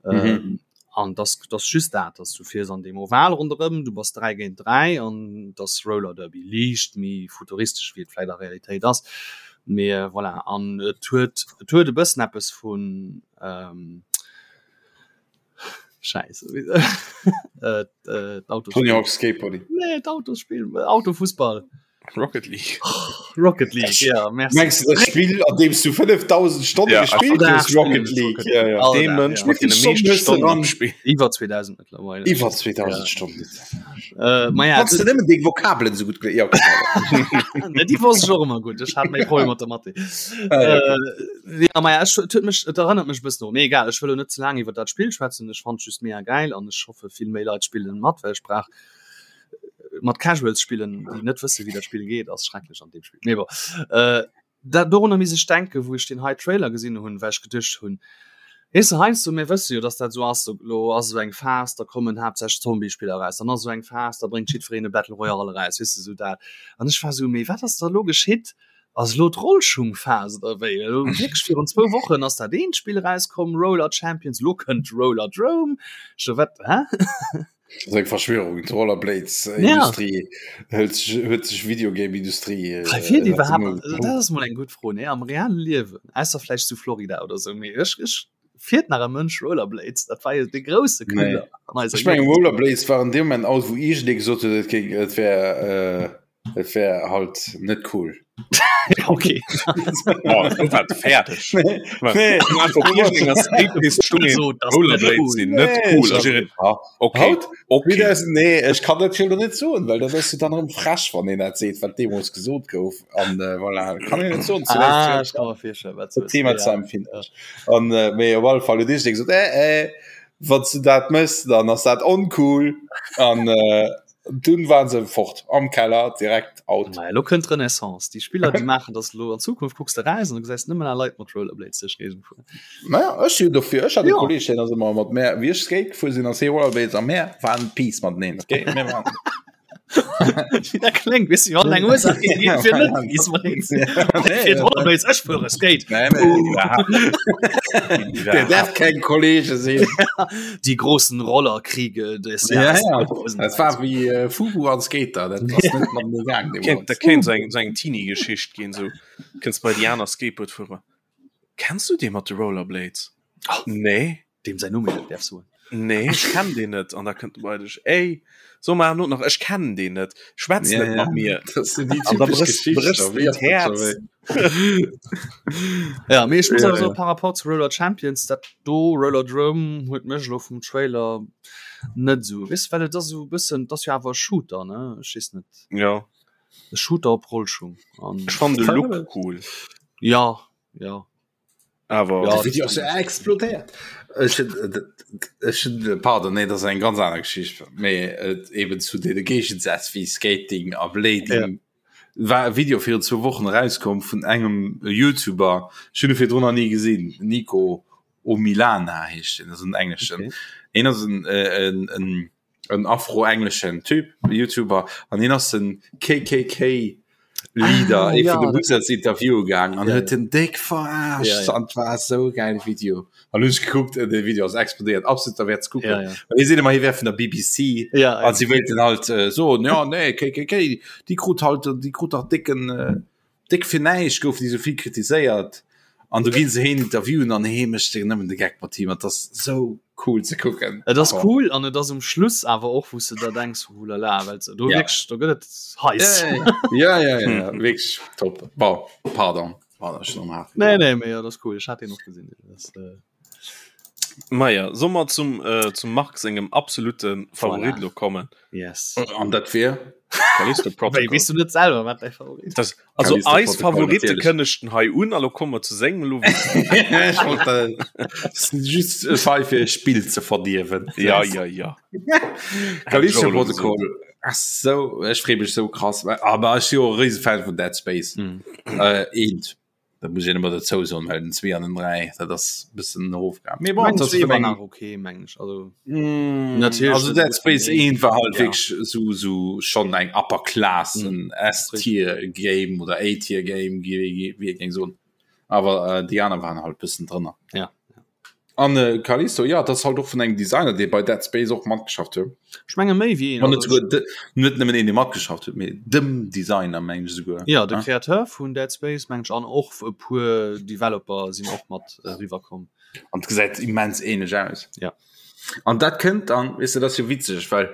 Mhm. An dass dass just dat, dass du fiers an deem Oval ronderëm, du bass 3 géint 3 an dass Roller Derby liicht méi futuristesch wéi et vläit a Realitéit ass. Mee voilà an et huet et huet e bëssen eppes vun ähm, Scheiße äh, äh, Tony Hawk's Skateboarding. Nee, d'Autosspill, Autofussball. Rocket League. Rocket League, ja, merci. Mengst du das Spiel, an dem du 5000 Stonnen ja, gespielt hast? Rocket League. Ja, ja. Dem Mensch mit den meisten Stonnen am Spiel. Iwwer 2000 mittlerweile. Iwwer 2000 ja. Stonnen. Äh, ma ja, Kannst du nëmmen deng Vokabelen so gut ja, okay. Ne, die wosst ich och immer gut. Ich hat méi Probleme mat der Mathe. Ah, ja, okay. Äh, ja, ma ja, ech, et huet mech, et erënnert mech e bëssen un. Mee egal, ech wëll lo net ze laang iwwer dat Spill schwätzen. Ech fand just mega geil an ech hoffe vill méi Leit spillen mat, well ech brauch mat Casuals spillen, déi net wësse wéi dat Spill geet, ass schrecklech an deem Spill. Mee bon. Äh, dat dorunner misst ech denken, wou ech deen hei Trailer gesinn hunn, well ech geduecht hunn, weess de, heiansdo, mir wësse jo, dass dat esou ass, elo ass esou eng Phas, da kommen haaptsächlech Zombiespiller eraus, dann ass esou eng Phas, da bréngt jiddwereen e Battle Royale eraus, weess de, esou dat. An ech war esou, mee wat ass da elo geschitt? Ass elo d'Rollschungphas oder wéi? Elo wierklech virun zwou Wochen ass dat eent Spill erauskomm, Roller Champions, elo kënnt Rollerdrome. Ech sou, wat, hä? Das eng Verschwörung d'Rollerblades-Industrie ja. huet sech Videogame-Industrie äh, dat ass mol eng gutt Fro nee am realen Liewen ausser vläicht zu Florida oder sou mee ech ech fiert nach e Mënsch Rollerblades dat war jo de grousse Knüller nee. Ech meng Rollerblades waren deem Moment out wou iergendee gesot huet et géing et wär äh, Et wär halt net cool. Okay. Oh, du war fertig. Nee. Rollerblades sinn net cool. Also, okay. Haut? Okay. Nee, ech kann dat jo net soen, well dat ass jo dann erëm frech, wann een dat seet, wat deemools gesot gouf. An äh, voilà, kann een net soen. Ah, ech kann mer virstellen, wat du Thema ze empfinden. An äh, mee op alle Fall huet iergendee gesot, äh, äh, wann s du dat mëss, dann ass dat oncool. An äh, Dunn waren se fort am Keller direkt out. Naja, lo kënnt d'Renaissance. Déi Spiller, déi maachen das lo an Zukunft kucks de raus an du gesäis nëmmen nach Leit mat Rollerblades duerch d'Géigend fueren. Naja, ech si dofir. Ech hat e Ja. Kolleg, deen ass ëmmer mat mär, wéi ech Skate gefuer sinn, ass hie Rollerblades a mär waren Peace mateneen, okay? Mir waren Wéi dat kléngt, weess du, wann eng Ursaach géif ginn, fir net Peace mateneen ze sinn. Nee, Fir d'Rollerblades, ech fuere Skate. Nee, nee, iwwerhaapt net. Der darf keng Kollege sinn. Die großen Rollerkriege des Ja, Jahres ja. 2023. Dat war wéi äh, Fubu an Skater, dat ass net mat mir gaang Kéint, dat kéint so eng, so eng Teenie-Geschicht ginn, so kënns bei déi aner Skateboard fuere. Kenns du dee mat de Rollerblades? Oh. Nee. Deem säin Numm een net däerf soen. Nee, ech kenn deen net. An da kënnt bei dech, ey, so mar not nach, ech kennen deen net, schwätz Ja, net ja. mat mir. Dat sinn déi An da typesch bréchs, Geschichten, bréchs wéi de ass dat scho d'Häerz. wéi? Ja, mee ech muss Ja, awer soen, ja. par rapport zu Roller Champions, dat do Rollerdrome huet mech elo vum Trailer net esou, weess de, well et ass esou e bëssen, et ass jo awer e Shooter, ne, ech weess net, Ja. e Shooter op Rollschung an Ech fannen de Look cool. ja, ja. Awer Ja, De Video ass jo explodéiert. Ech hunn, ech hunn, pardon, nee, dat ass eng ganz aner Geschicht, mee et eben zu deene Géigesätz wéi Skating a Blading. Ja. War e Video virun zwou Wochen erauskomm vun engem Youtuber, ech hunn e virdrun nach ni gesinn, Nico Omilana heescht deen, ass en engleschen. Okay. Hien ass en, en, en, en afro-engleschen Typ, Youtuber, an hien ass den KKK Leader Ah, ee ja, vun de dat Wizards Interview gaang an Ja, huet ja. den déck verarscht Ja, ja. an et war esou e gäile Video. An hunn ech gekuckt, de Video ass explodéiert, absolut derwäert ze kucken. Ja, ja. Well hie seet ëmmer, hie wär vun der BBC Ja, an ja. si wéilten halt äh, soen, ja nee, KKK, déi krut halt, déi krut dach décken, äh, déck fir näischt goufen déi esou vill kritiséiert. An do ginn se heen interviewen an hee mécht sech nëmmen de Geck mat him an 't ass esou cool ze kucken. Et ass cool an et ass um Schluss awer och wou s de der denks hulala, well se do Ja. wierklech do gëtt et heiss. Ja, ja, ja, ja, wierklech top. Bon, pardon, pardon, ech hunn am Hafen. Nee, nee, mee jo, dat ass cool, ech hat deen och gesinn. Dat ass, äh, Maja, soll mer zum, äh, zum Marc sengem absolute Favorit Voilà. lo kommen? Yes. An dat wier? Callisto Wéi, Protocol. weess du net selwer, wat däi Favorit Das, also Callisto eis Protocol, Favorite natierlech. kënnechten hei un, a lo komme mer zu sengem lo. Ech wollt dat just e Fall fir e Spill ze verdierwen. Ja, ja, ja. Callisto Hätt ech och elo Protocol ass sou, ech free mech sou krass, aber ech si jo e Riesefan vun Dead Space. Mhm. Äh, eent. Dat muss een ëmmer dozou soen, well den 2 an den 3, dat ass e bëssen erofgaangen. Mee bon, Mengen dat ass zwee vun war engem nach okay, mengen ech. Also Mm, Natierlech also net Dead esou Space vun 1 war halt ja. wierklech sou sou schonn eng Upper Class, Mm, en S-Tier Game oder A-Tier Game, wéi wéi ee géing soen. Awer äh, déi aner waren halt bëssen drënner. Ja. An äh, Callisto, ja, das halt och vun engem Designer, dee bei Dead Space och matgeschafft huet. Ech menge méi wéi een. An net souguer de, net nëmmen een, dee matgeschafft huet, mee dem Designer meng ech souguer. Ja, de Créateur vun Dead Space meng ech an och e puer Developer sinn och mat eriwwer komm. An et gesäit immens ähnlech aus. Ja. An dat kënnt dann, weess de, dat ass jo witzeg, well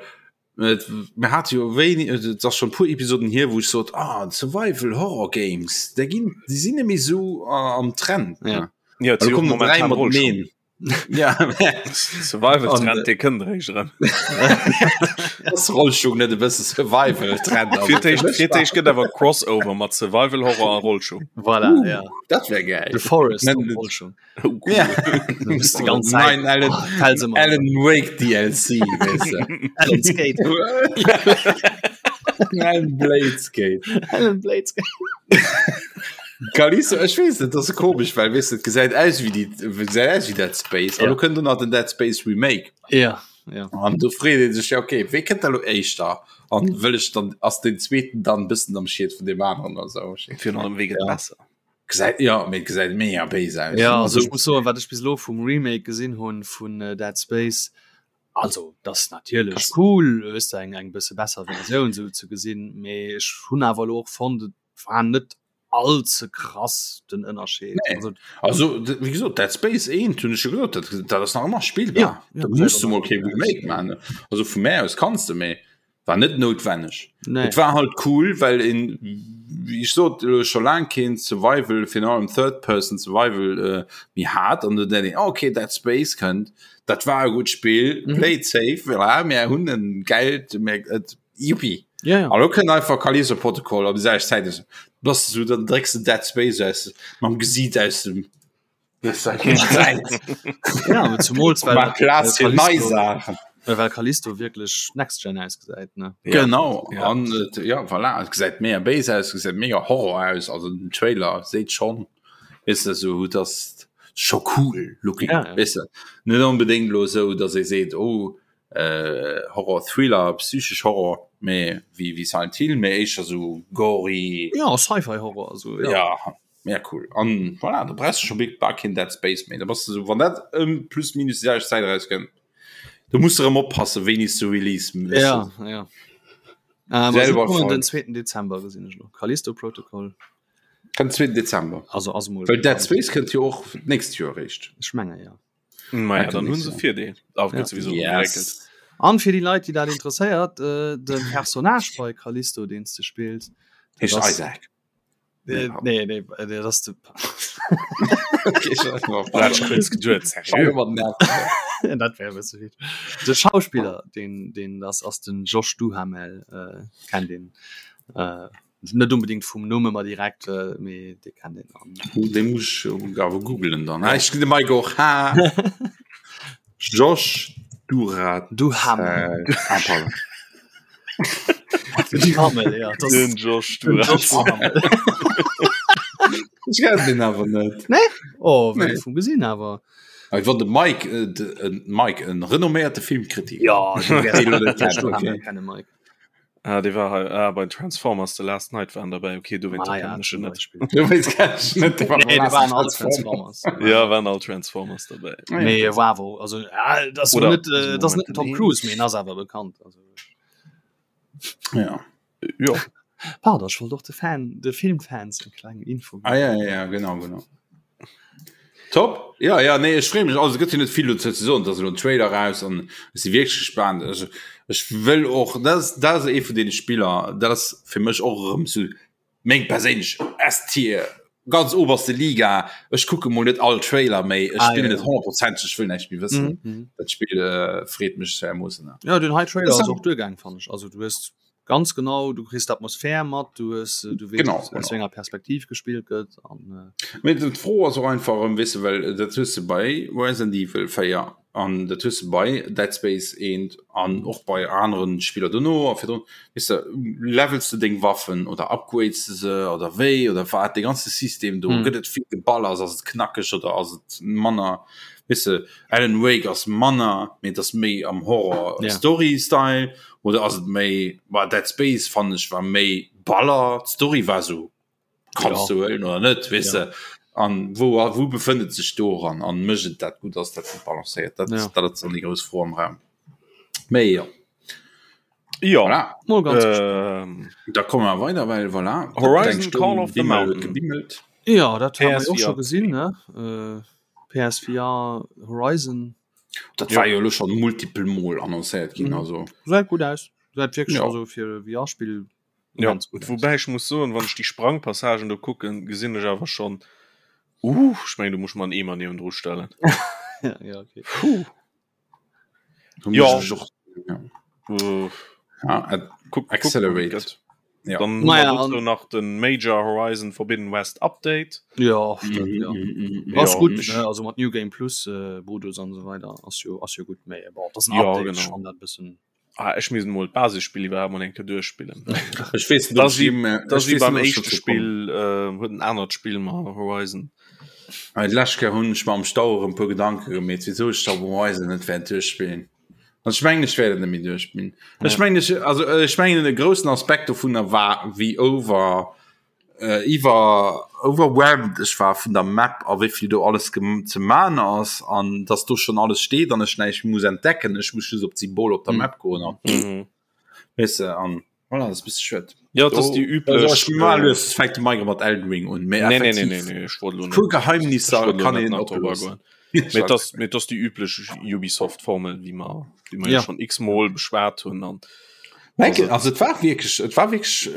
mir hate jo wéini, et ass schonn e puer Episoden hier, wou ech sot, ah, Survival Horror Games, déi ginn, déi sinn net méi esou am Trend. Ja. Ja, Also kommen momentan dräi mateneen. Ja, Survival Trend, dee kënnt eréischt erëm. Ass Rollschung net e bësse Survival Trend? Fir d'éischt, fir d'éischt gëtt awer Crossover mat Survival Horror a Rollschung. Voilà, uh, ja. Dat wär geil. The Forest op Rollschung. Oh, cool. Ja. Du bist die ganze Zeit. Nein, Alan, Fälls immer. Alan Wake DLC, weißt du. Alan Skate. Alan Blade Skate. Alan Blade Skate. Callisto, ech weess net, dat ass komesch, well weess de, et gesäit aus wéi déi, gesäit aus wéi Dead Space. An Ja. lo kënnt do nach den Dead Space Remake. Ja, ja. An do freet ee sech, ja okay, wéi kënnt da lo éischter? An wëll ech dann, ass den zweeten dann e bëssen am Schied vun deem aneren oder sou? Virun allem, wéi gëtt Ja. besser? Gesäit, ja, mee et gesäit mega béis aus. Ja, also Also, ech muss soen, wat ech bis elo vum Remake gesinn hunn vun Dead Space, also dat ass natierlech cool, weess de, eng eng bësse besser Versioun sou ze gesinn, mee ech hunn awer elo och fonnt, et war net all ze krass den Ënnerscheed. Nee. Also, also wéi gesot, Dead Space 1 hunn ech jo gesot, dat, dat ass nach ëmmer spillbar. Ja, ja, Da muss du mol kee Remake maachen. Also vu mär aus kanns de, mee war net noutwenneg. Nee. Et war halt cool, well een, wéi ech sot, elo scho laang keen Survival, virun allem Third Person Survival äh, méi hat an du denkt een, okay, Dead Space kënnt, dat war e gutt Spill, Mhm. play it safe, voilà, mir hunn en geilt, mir, et, juppie. Ja, ja. An lo kënnt einfach Callisto Protocol op déi selwecht Zäit, also, bass du, dann drécks de Dead Space aus, mam Gesiit aus dem Ja, aber zumols well Maach Plaz fir nei Callisto, Saachen. well Callisto wierklech Next Gen ausgesäit ne. Ja. Genau Ja. an et, ja voilà, et gesäit mega béis aus, gesäit mega Horror aus, also den Trailer seet schon weess de sou dass scho cool looking Ja, ja. weess de net onbedéngt lo sou dass ee seet oh äh, Horror Thriller psychesch Horror mee wéi wéi Silent Hill mee éischter sou gory Ja, Sci-Fi Horror also ja, ja. Ja cool an voilà, da brauchst du schon big bar keen Dead Space méi da bass du so wann dat ëm plus minus déi selwecht Zäit erauskënnt du musst erëm oppasse wéini s du Release weess Ja, du. ja. Ähm, also Selber kommen den Schold. 2. Dezember gesinn ech lo. Callisto Protocol. Kënnt 2. Dezember. Also ass mol Well Dead Space kënnt jo och d'nächst Joer eréischt. Ech menge ja. Maja, Ah, dann hunn se Virdeel. Awer Ja. gëtt sowieso Yes. geréckelt. An fir déi Leit, déi dat interesséiert, äh, de Personnage bei Callisto, deen s de spills, dat Heescht ass Isaac. Nee, nee, nee, nee, das de Dat wär bësse vill. De Schauspiller, deen, deen das ass den Josh Duhamel, äh, kennt een. Äh, net unbedingt vum Numm ëmmer direkt, äh, mee dee kennt een. An De muss ech awer googelen dann. Ah, ech de Mike och. Ha. Josh Durat Duhamel. Äh, ah, pardon. Duhamel, ja. Das, Den Josh den Duhamel. Josh Duhamel. Ech kenn den awer net. Oh, wéi Nee. vum gesinn awer. Awer wann de Mike, äh, de, äh, Mike en renomméierte Filmkritiker. Ja, du wärs Deen lo net Josh kennt, Duhamel okay. kenne Mike. Ah, dee war hei ah, bei Transformers The Last Night waren dabei. Okay, du Ah, ja, net. zum Beispiel. Du wees kenn ich net, dee war Nee, beim die waren all Transformers. Transformers. Ja, waren all Transformers dabei. Ah, ja. Nee, war wo. Also, ja, das Oder- net, äh, das net Moment, Tom nee. Cruise, mee ass awer bekannt. Also, Ja. Ja. pardon, ech wollt och de Fan, de Filmfans eng kleng Info ginn. Ah, ja, ja, ja, genau, genau. Top. Ja, ja, nee, ech freeë mech. Also, et gëtt jo net vill dozou ze soen. Et ass elo en Trailer raus an ech si wierklech gespaant. Also, ech wëll och, dat ass, dat ass ee vun deene Spiller, dat ass fir mech och erëm sou meng perséinlech S-Tier, ganz oberste Liga. Ech kucke mol net all Trailer méi, ech Ah, spillen ja, et ja. honnertprozenteg, ech wëll näischt méi wëssen. Mhm, mhm. Dat Spill äh, freet mech dermoossen. Ja, den hei Trailer Das ass och duergaang, fand ech. Also, du hues ganz genau du kriss d'Atmosphär mat du hues äh, du weess Genau, aus genau. wéi enger Perspektiv gespillt gëtt an äh, Mee d'Fro ass och einfach erëm, weess de, well dat hues de bei Resident Evil 4 an dat hues de bei Dead Space 1 an och bei aneren Spiller dono a virdrun, weess de, levels de deng Waffen oder upgrades de se oder wéi oder wat, dee ganze System do, Mhm. gëtt et vill Geballers, ass et knackeg oder ass et manner, weess de, Alan Wake ass manner, mee et ass méi am Horror Ja. Story Style oder ass et méi war Dead Space fand ech war méi Baller d'Story war so kannst Ja. du huelen oder net weess Ja. de. An wou a wou befënnt et sech doran an mécht et dat gutt, ass dat gutt balancéiert? Dat, ja. dat ass dann déi grouss Fro am Raum. Méi jo. Ja. Voilà. Mol ganz ähm, da komme wir weiter, well voilà, Horizon Call of the Mountain. Gebimmelt. Ja, dat haben wir och scho gesinn ne? Äh, PSVR Horizon. Dat ja. war jo lo schon multiple Mol annoncéiert ginn mhm. also. Säit gut aus. Säit wirklich ja. also fir VR-Spiel Ja, woubäi ech muss soen, wann ech déi Sprangpassagen do kucken, gesinn ech awer schonn, uh, ech mengen, do muss ech mer en Eemer niewendru stellen. Ja, ja, okay. Puh. Ja. Ja. Uh, ja, äh, guck, Accelerate. Guck, ja. Dann naja, an nach den Major Horizon Forbidden West Update. Ja, mm, ja. Mm, mm, ass ja, gut ne? also mat New Game Plus äh, Modus an so weiter ass jo ass jo gut méi das ja, Update, genau. schon dat bëssen Ah, ech misst mol d'Basisspill iwwerhaapt mol eng Kéier duerchspillen. Ech weess net, ob ech jee- Das ech wie weess beim net, ob ech éischte dozou Spill äh, huet en anert Spill ma Horizon. kommen. D'lescht Kéier hunn ech mer am Stau erëm e puer Gedanke gemeet, wisou ech da Horizon net wäert duerchspillen. An ech mengen, ech wäert et net méi duerchspillen. Ech mengen, ech, also ech mengen, e groussen Aspekt dovunner war, wéi over iwwer overwhelmed ech war vun der Map a wéi vill do alles ze man ass an dass do schon alles steet an ech näischt muss entdecken ech muss just op d'Symbol op der Map goen an mhm. weißt du, an voilà, das bist schued ja das die üblich fängt de mat Elden Ring un nee, nee, nee, nee, nee, ich wollte puer Geheimnisser kann een oplosen Mee das, mee das die üblich Ubisoft Formel wie man wie man ja. schon x-mal beschwert hunn an also, also et war wirklich et war wirklich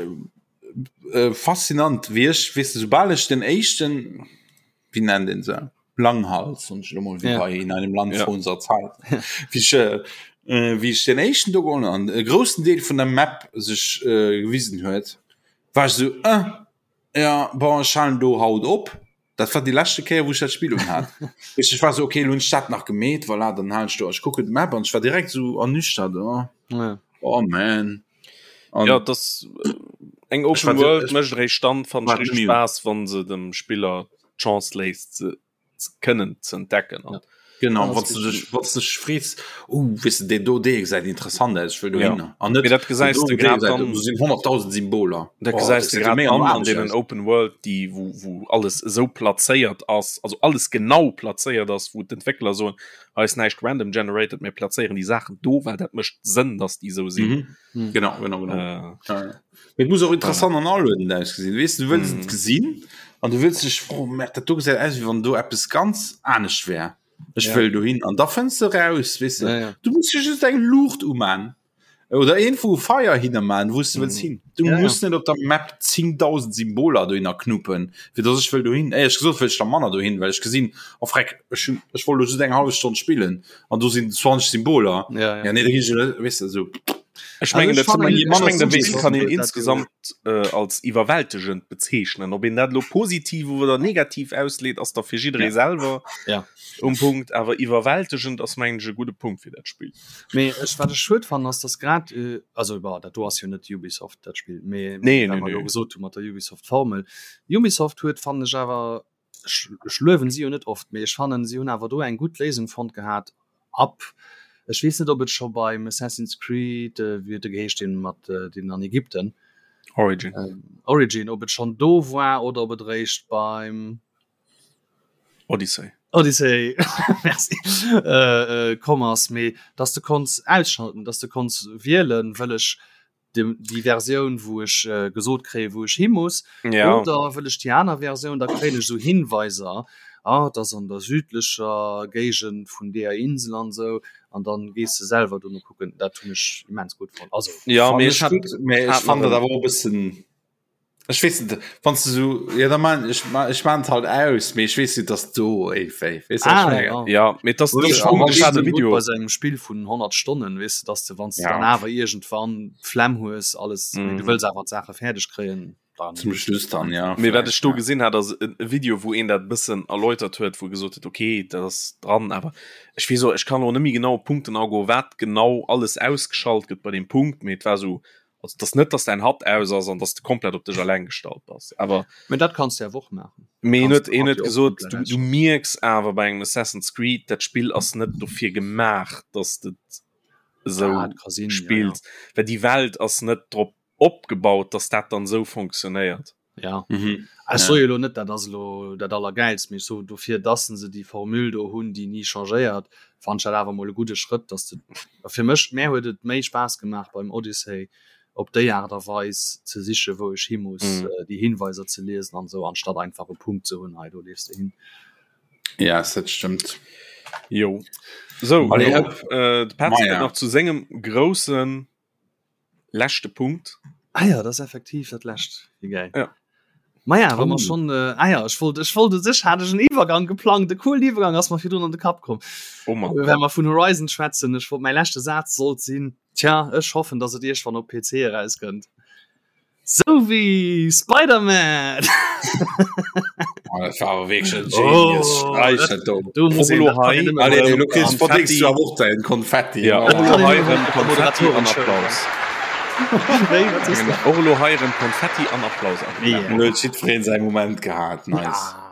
äh, faszinant wéi ech weess de soubal ech den éischten wéi nennt een se Langhals und ech mol wéi ja. bei in einem Land ja. vor unserer Zeit wéi ech äh, äh, wéi ech den éischten do geholl an e groussen Deel vun der Map sech äh, gewisen huet war ech so äh, ja bon ech halen do haut op dat war déi leschte Kéier wou ech dat Spill un hat Weess ech war so okay lo hunn ech dat nach gemeet voilà dann halen ech do ech kucken d'Map an ech war direkt so ernüchtert oh, ja. oh man An ja das äh, eng Open World mécht réischt dann fand ech richtig Spaß wann se dem Spiller d'Chance léisst se kënnen ze entdecken an ja. Genau wat du dech wat du dech frees oh weess de deen do dee gesäit interessant aus ech wëll dohinner ja. an net dat gesäis du grad dann do sinn 100.000 Symboler dat oh, gesäis du grad an an deenen Open World déi wou wou alles esou plazéiert ass also alles genau plazéiert ass wou d'Entwéckler soen hei ass näischt random generated mir plazéieren déi Saachen do well dat mécht Sënn dass déi esou sinn. Mhm. Mhm. Genau, genau, genau. Äh, ja, ja. Et muss och interessant an aluedend ausgesinn. Weess du wëlls et mhm. gesinn an du wëlls dech froen, mer dat do gesäit aus wéi wann do eppes ganz anescht wär. Ech ja. wëll dohin an da fënns du raus, weess du. Ja, ja. Du muss just eng Luucht uman oder een vu Feier hinner man, wou du wëlls mhm. hin. Du ja, muss ja. net op der Map 10.000 Symboler dohinner knuppen, fir dass ech wëll dohin. Éierlech gesot wëll ech da manner dohin, well ech gesinn, oh freck, ech hunn ech wollt lo just eng hallef Stonn spillen an do sinn 20 Symboler. Ja, ja. ja nee, da ginn ech net, weess de, sou. Ech mengen, dat ech mengen, dat Spill kann een insgesamt äh, als iwwerwältegend bezeechnen. Ob een dat lo positiv oder negativ ausleet, ass da fir jidderee ja. selwer ja. um Punkt. Awer iwwerwältegend ass mengen ech e gudde Punkt fir dat Spill. Mee ech wat ech schued fannen ass, dass grad äh, also bah, dat do ass jo net Ubisoft dat Spill, mee nee, nee, nee, nee. gesot hu mat der Ubisoft Formel. Ubisoft huet fannen ech awer ech, ech luewen si jo net oft, mee ech fannen si hunn awer do eng gutt Léisung fonnt gehat ab, ech weess net ob et scho beim Assassin's Creed, wéi huet e geheescht deen mat deen an Ägypten, Origin, Origin, ob et schonn do war oder ob et eréischt beim Odyssey. Odyssey merci komm ass, mee dass de konns ausschalten, dass de konns wielen, wëll ech déi Versioun wou ech äh, gesot kréie wou ech hi muss ja. oder wëll ech déi aner Versioun, da kréien ech sou Hinweiser ah, dat ass an der südlecher Géigend vun deeër Insel an sou an dann gees de selwer dono kucken. Dat hunn ech immens gutt fonnt. Also ja, Fand mee ech ech hat, gutt, mee ech hat fand nach dat en awer och e bëssen Ech weess net, wann s du sou, ja da man ech ech maan et halt aus, mee ech weess net, dass do ey wéi, weess du wat ech Ah, mengen? ja. Ja, mee dass Ech dass fannen ech hat e et gutt Video bei sou engem Spill vun 100 Stonnen, weess de, dass de wann s de Ja. dann awer iergendwann d'Flemm hues alles, mee du Mhm. wëlls awer d'Saache fäerdeg kréien, dann Zum Schluss dann, ja, Mee wat vläicht, ech do ja. gesinn hat, ass e Video, wou een dat e bëssen erläutert huet, wou gesot huet, okay, dat ass dran, awer ech weess och, ech kann elo net méi genau op d'Punkten agoen, wat genau alles ausgeschalt gëtt bei deem Punkt, mee et war sou Also et ass net, dass däin HUD aus ass an dass de komplett op dech eleng gestallt bass. Awer Mee dat kanns de awer och maachen. Mee en Kanns huet, de en HUD huet jo och gesot, komplett du, du ausschalten. mierks awer bei engem Assassin's Creed, dat Spill ass net dofir gemaach, dass de et esou Dat ka sinn, ja, ja. spills, well déi Welt ass net drop opgebaut, dass dat dann esou fonctionnéiert. Ja. Mhm. Ech soe jo lo net, dat ass elo dat Allergäilst, mee ech soen dofir, dass se déi Formule do hunn, déi ni changéiert, fannen ech dat awer emol e gudde Schrëtt, dass de, a fir mech, mär huet et méi Spaass gemaach beim Odyssey op déi Aart a Weis ze sichen, wou ech hi muss, mhm. déi Hinweiser ze liesen an esou, anstatt einfach e Punkt ze hunn, hei do leefs de hin. Ja, dat stëmmt. Jo. So, Allez, äh, de Patrick nach zu sengem groussen leschte Punkt. Ah ja, dat ass effektiv dat lescht. Wéi gäil. Ja. Maja, wa mer schon äh, ah ja, ech wollt ech wollt u sech hat ech en Iwwergang geplangt, de coolen Iwwergang ass mer virdrun an de Kapp komm. Oh Mann. Well mer vun Horizon schwätzen, ech wollt mäi leschte Saz sollt sinn, tja, ech hoffen, datt et iergwann op PC erauskënnt. Sou wéi Spider-Man! Oh, dat war awer wierklech en Genius Oh, Streich, dat- dat do. do muss een, Olo dat kann hei, een nëmme Allez, beim lo kriss Konfetti. verdéngs du awer och däin Konfetti. Ja, Oh. och elo hei erëm Moderatoren Konfetti an schëllen. Applaus. Wéi, wat sees du? Och elo hei erëm Konfetti an Applaus. Ja. Lo huet jiddwereen säi Moment gehat. Nice. Ja.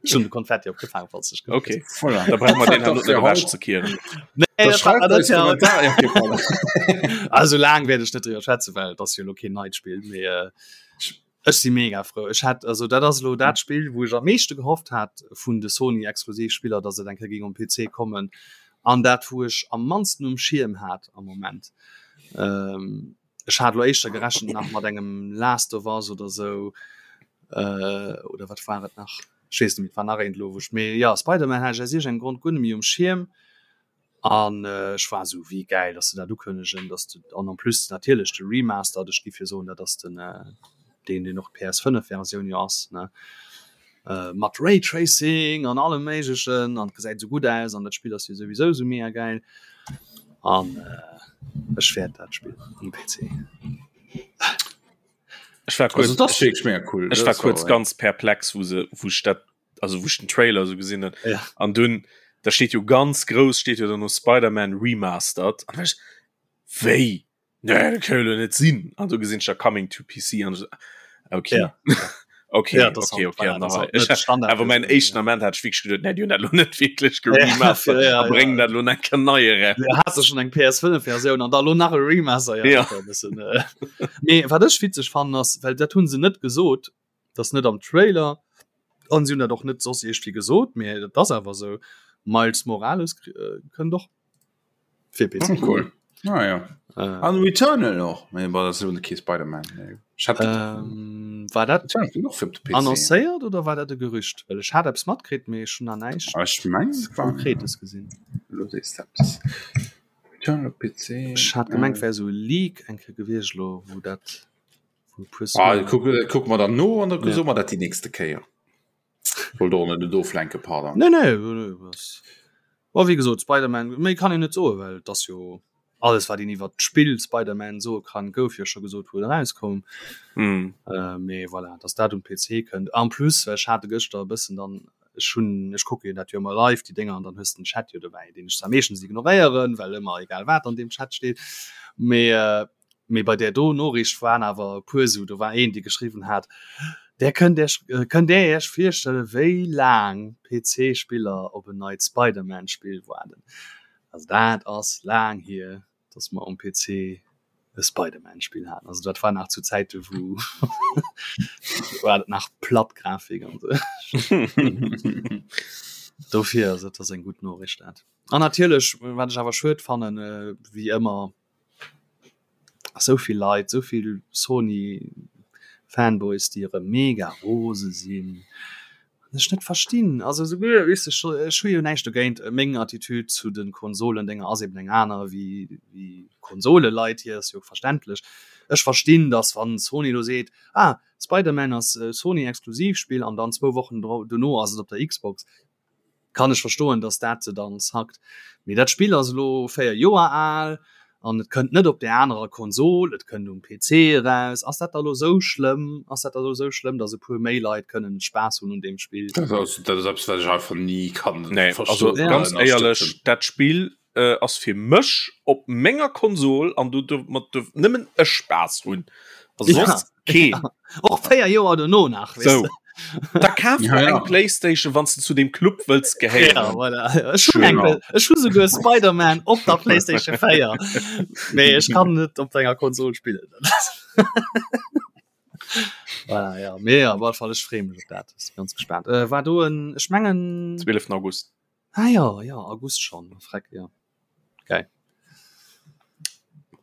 Ech hunn de Konfetti opgefaangen, falls du dech gewonnert Okay, hues. Voilà. da brauche mer Dat deen war herno fir net haut. ewechzekieren. Nee, Da dat war, schreift dat eis ja. Kommentar. Ja, okay, voilà. Also laang wäert ech net driwwer schwätzen, well et ass jo elo keen neit Spill, mee äh, ech si mega frou. Ech hat also dat ass elo dat Spill, wou ech am meeschte gehofft hat vun de Sony Exklusivspiller, datt et eng Kéier géing um PC kommen an dat wou ech am mannsten um Schierm hat am Moment. Ähm, ech hat elo éischter gerechent nach mat engem Last of Us oder sou äh, oder wat war et nach? Ech weess net méi, et war nach eent elo wou ech mee ja Spider-Man hat ech aus iergendengem Grond guer net méi um Schierm. An ech war esou, wéi gäil, dass se dat ukënnegen, dass de, an en plus natierlech de Remastered, ech giff jo soen, dat ass den deen, deen och d'PS5-Versioun jo ass, ne, mat Raytracing an allem Méiglechen an et gesäit esou gutt aus an dat Spill ass jo souwisou esou mega gäil an ech wäert dat spillen um PC. Ech war Also, kuerz, dat ass wierklech mega cool. ech war Dat kuerz war, ganz perplex, wou se, wou ech dat also wou ech den Trailer so gesinn hunn Ja. an dunn da steet jo ganz grouss steet jo dann no Spider-Man Remastered an ech wéi nee, dat kann jo net sinn an du gesinn ech da Coming to PC an ech so, okay Ja. okay Ja, das okay halt, okay voilà, an das da halt ich net Standard awer mein Versioun, éischten ja. Ament hat ech wierklech geduet nee, déi hunn dat lo net wierklech Ja, geremastert ja, a bréngen ja. dat lo nach eng nei eraus. Ja, hast du schon eng PS5-Versioun an da lo nach e Remaster ja, Ja. dat war e bëssen, äh. Mee wat ech witzeg fannen ass, well dat hunn se net gesot, dat ass net am Trailer an si hunn dat och net soss iergendwéi gesot, mee dat ass awer esou, Miles Morales kënnt och fir PC. Oh, cool. Ah, ja. Äh, An Returnal och. Mee bon, dat ass jo kee Spider-Man. Nee. Ech hat ähm, war dat Returnal kënnt och fir op de PC. annoncéiert oder war dat e Gerücht? Well ech hat eppes matkritt, mee ech hunn nach näischt Ah, ech mengen, es war Konkretes gesinn. Lo sees de eppes. Returnal op PC. Ech hat gemengt, wär esou e Leak eng Kéier gewiescht elo, wou dat Ah, kuck, kuck mer dann no an da ja. mer dat die nächste Kéier. Wollt och net oflenke pardon. Nee, nee, nee, was. War wie gesot Spider-Man méi kann een net soe, well dat ass jo alles wat een iwwer d'Spill Spider-Man soe kann, gouf jo scho gesot wou et erauskoum. Mm. Äh, mee voilà, dass dat um PC kënnt. En plus ech hat gëschter e bëssen dann ech hunn ech kucke jo dat jo ëmmer live déi Dénger an dann hues de den Chat jo dobäi, deen ech zwar meeschtens ignoréieren, well ëmmer egal wat an deem Chat steet, mee äh, Mee bei där do Noriicht waren awer e puer esou, do war een, dee geschriwwen hat, Där kënnt Iech, kënnt Där Iech virstelle wéi laang PC-Spiller op en neit Spider-Man-Spill waarden? Also dat ass laang hier, datt mer um PC e Spider-Man-Spill haten. Also dat war nach zu Zäite wou war dat nach platt Grafik an esou. Dofir, also dat ass eng gutt Noriicht dat. An natierlech, wat ech awer schued fannen, wéi ëmmer, Esou vill Leit, esou vill Sony Fanboys déi erëm mega rose sinn an ech net verstinn. Also esouguer weess ech ech hu jo näischt dogéint, meng Attitude zu de Konsolendenger ass eben eng aner wéi wéi Konsoleleit hier, ass jo verständlech. Ech verstinn, datt wann Sony elo seet, ah Spider-Man ass Sony Exklusivspill an dann zwou Wochen dono ass et op der Xbox, kann ech verstoen, dass dat se dann zackt. Mee dat Spill ass elo 4 Joer al an et kënnt net op där anerer Konsol, et kënnt um PC eraus. Ass dat da elo sou schlëmm? Ass dat da elo sou schlëmm, dass e puer méi Leit kënnen Spaass hunn un deem Spill? Dat ass, dat ass eppes, wat ech einfach ni kann Nee, also verstoen ganz oder éierlech, ënnerstëtzen. dat Spill äh, ass fir mech op menger Konsol an do duerf mat duerf nëmmen ech Spaass hunn. Also Ja, soss keen. ja. Och 4 Joer dono nach, weess So. de. Da kaf Ja, der ja. eng Playstation, wann s de zu deem Club wëlls Ja, gehéieren. voilà. Ech hunn eng Genau. Ech hu souguer Spider-Man op der Playstation 4. Mee ech kann net op denger Konsol spillen. Voilà, ja. Mee op alle Fall ech freeë mech op dat, si ganz gespaant. Äh, war do en, ech mengen 12. August. Ah ja, ja, August schon, freck, ja. Geil.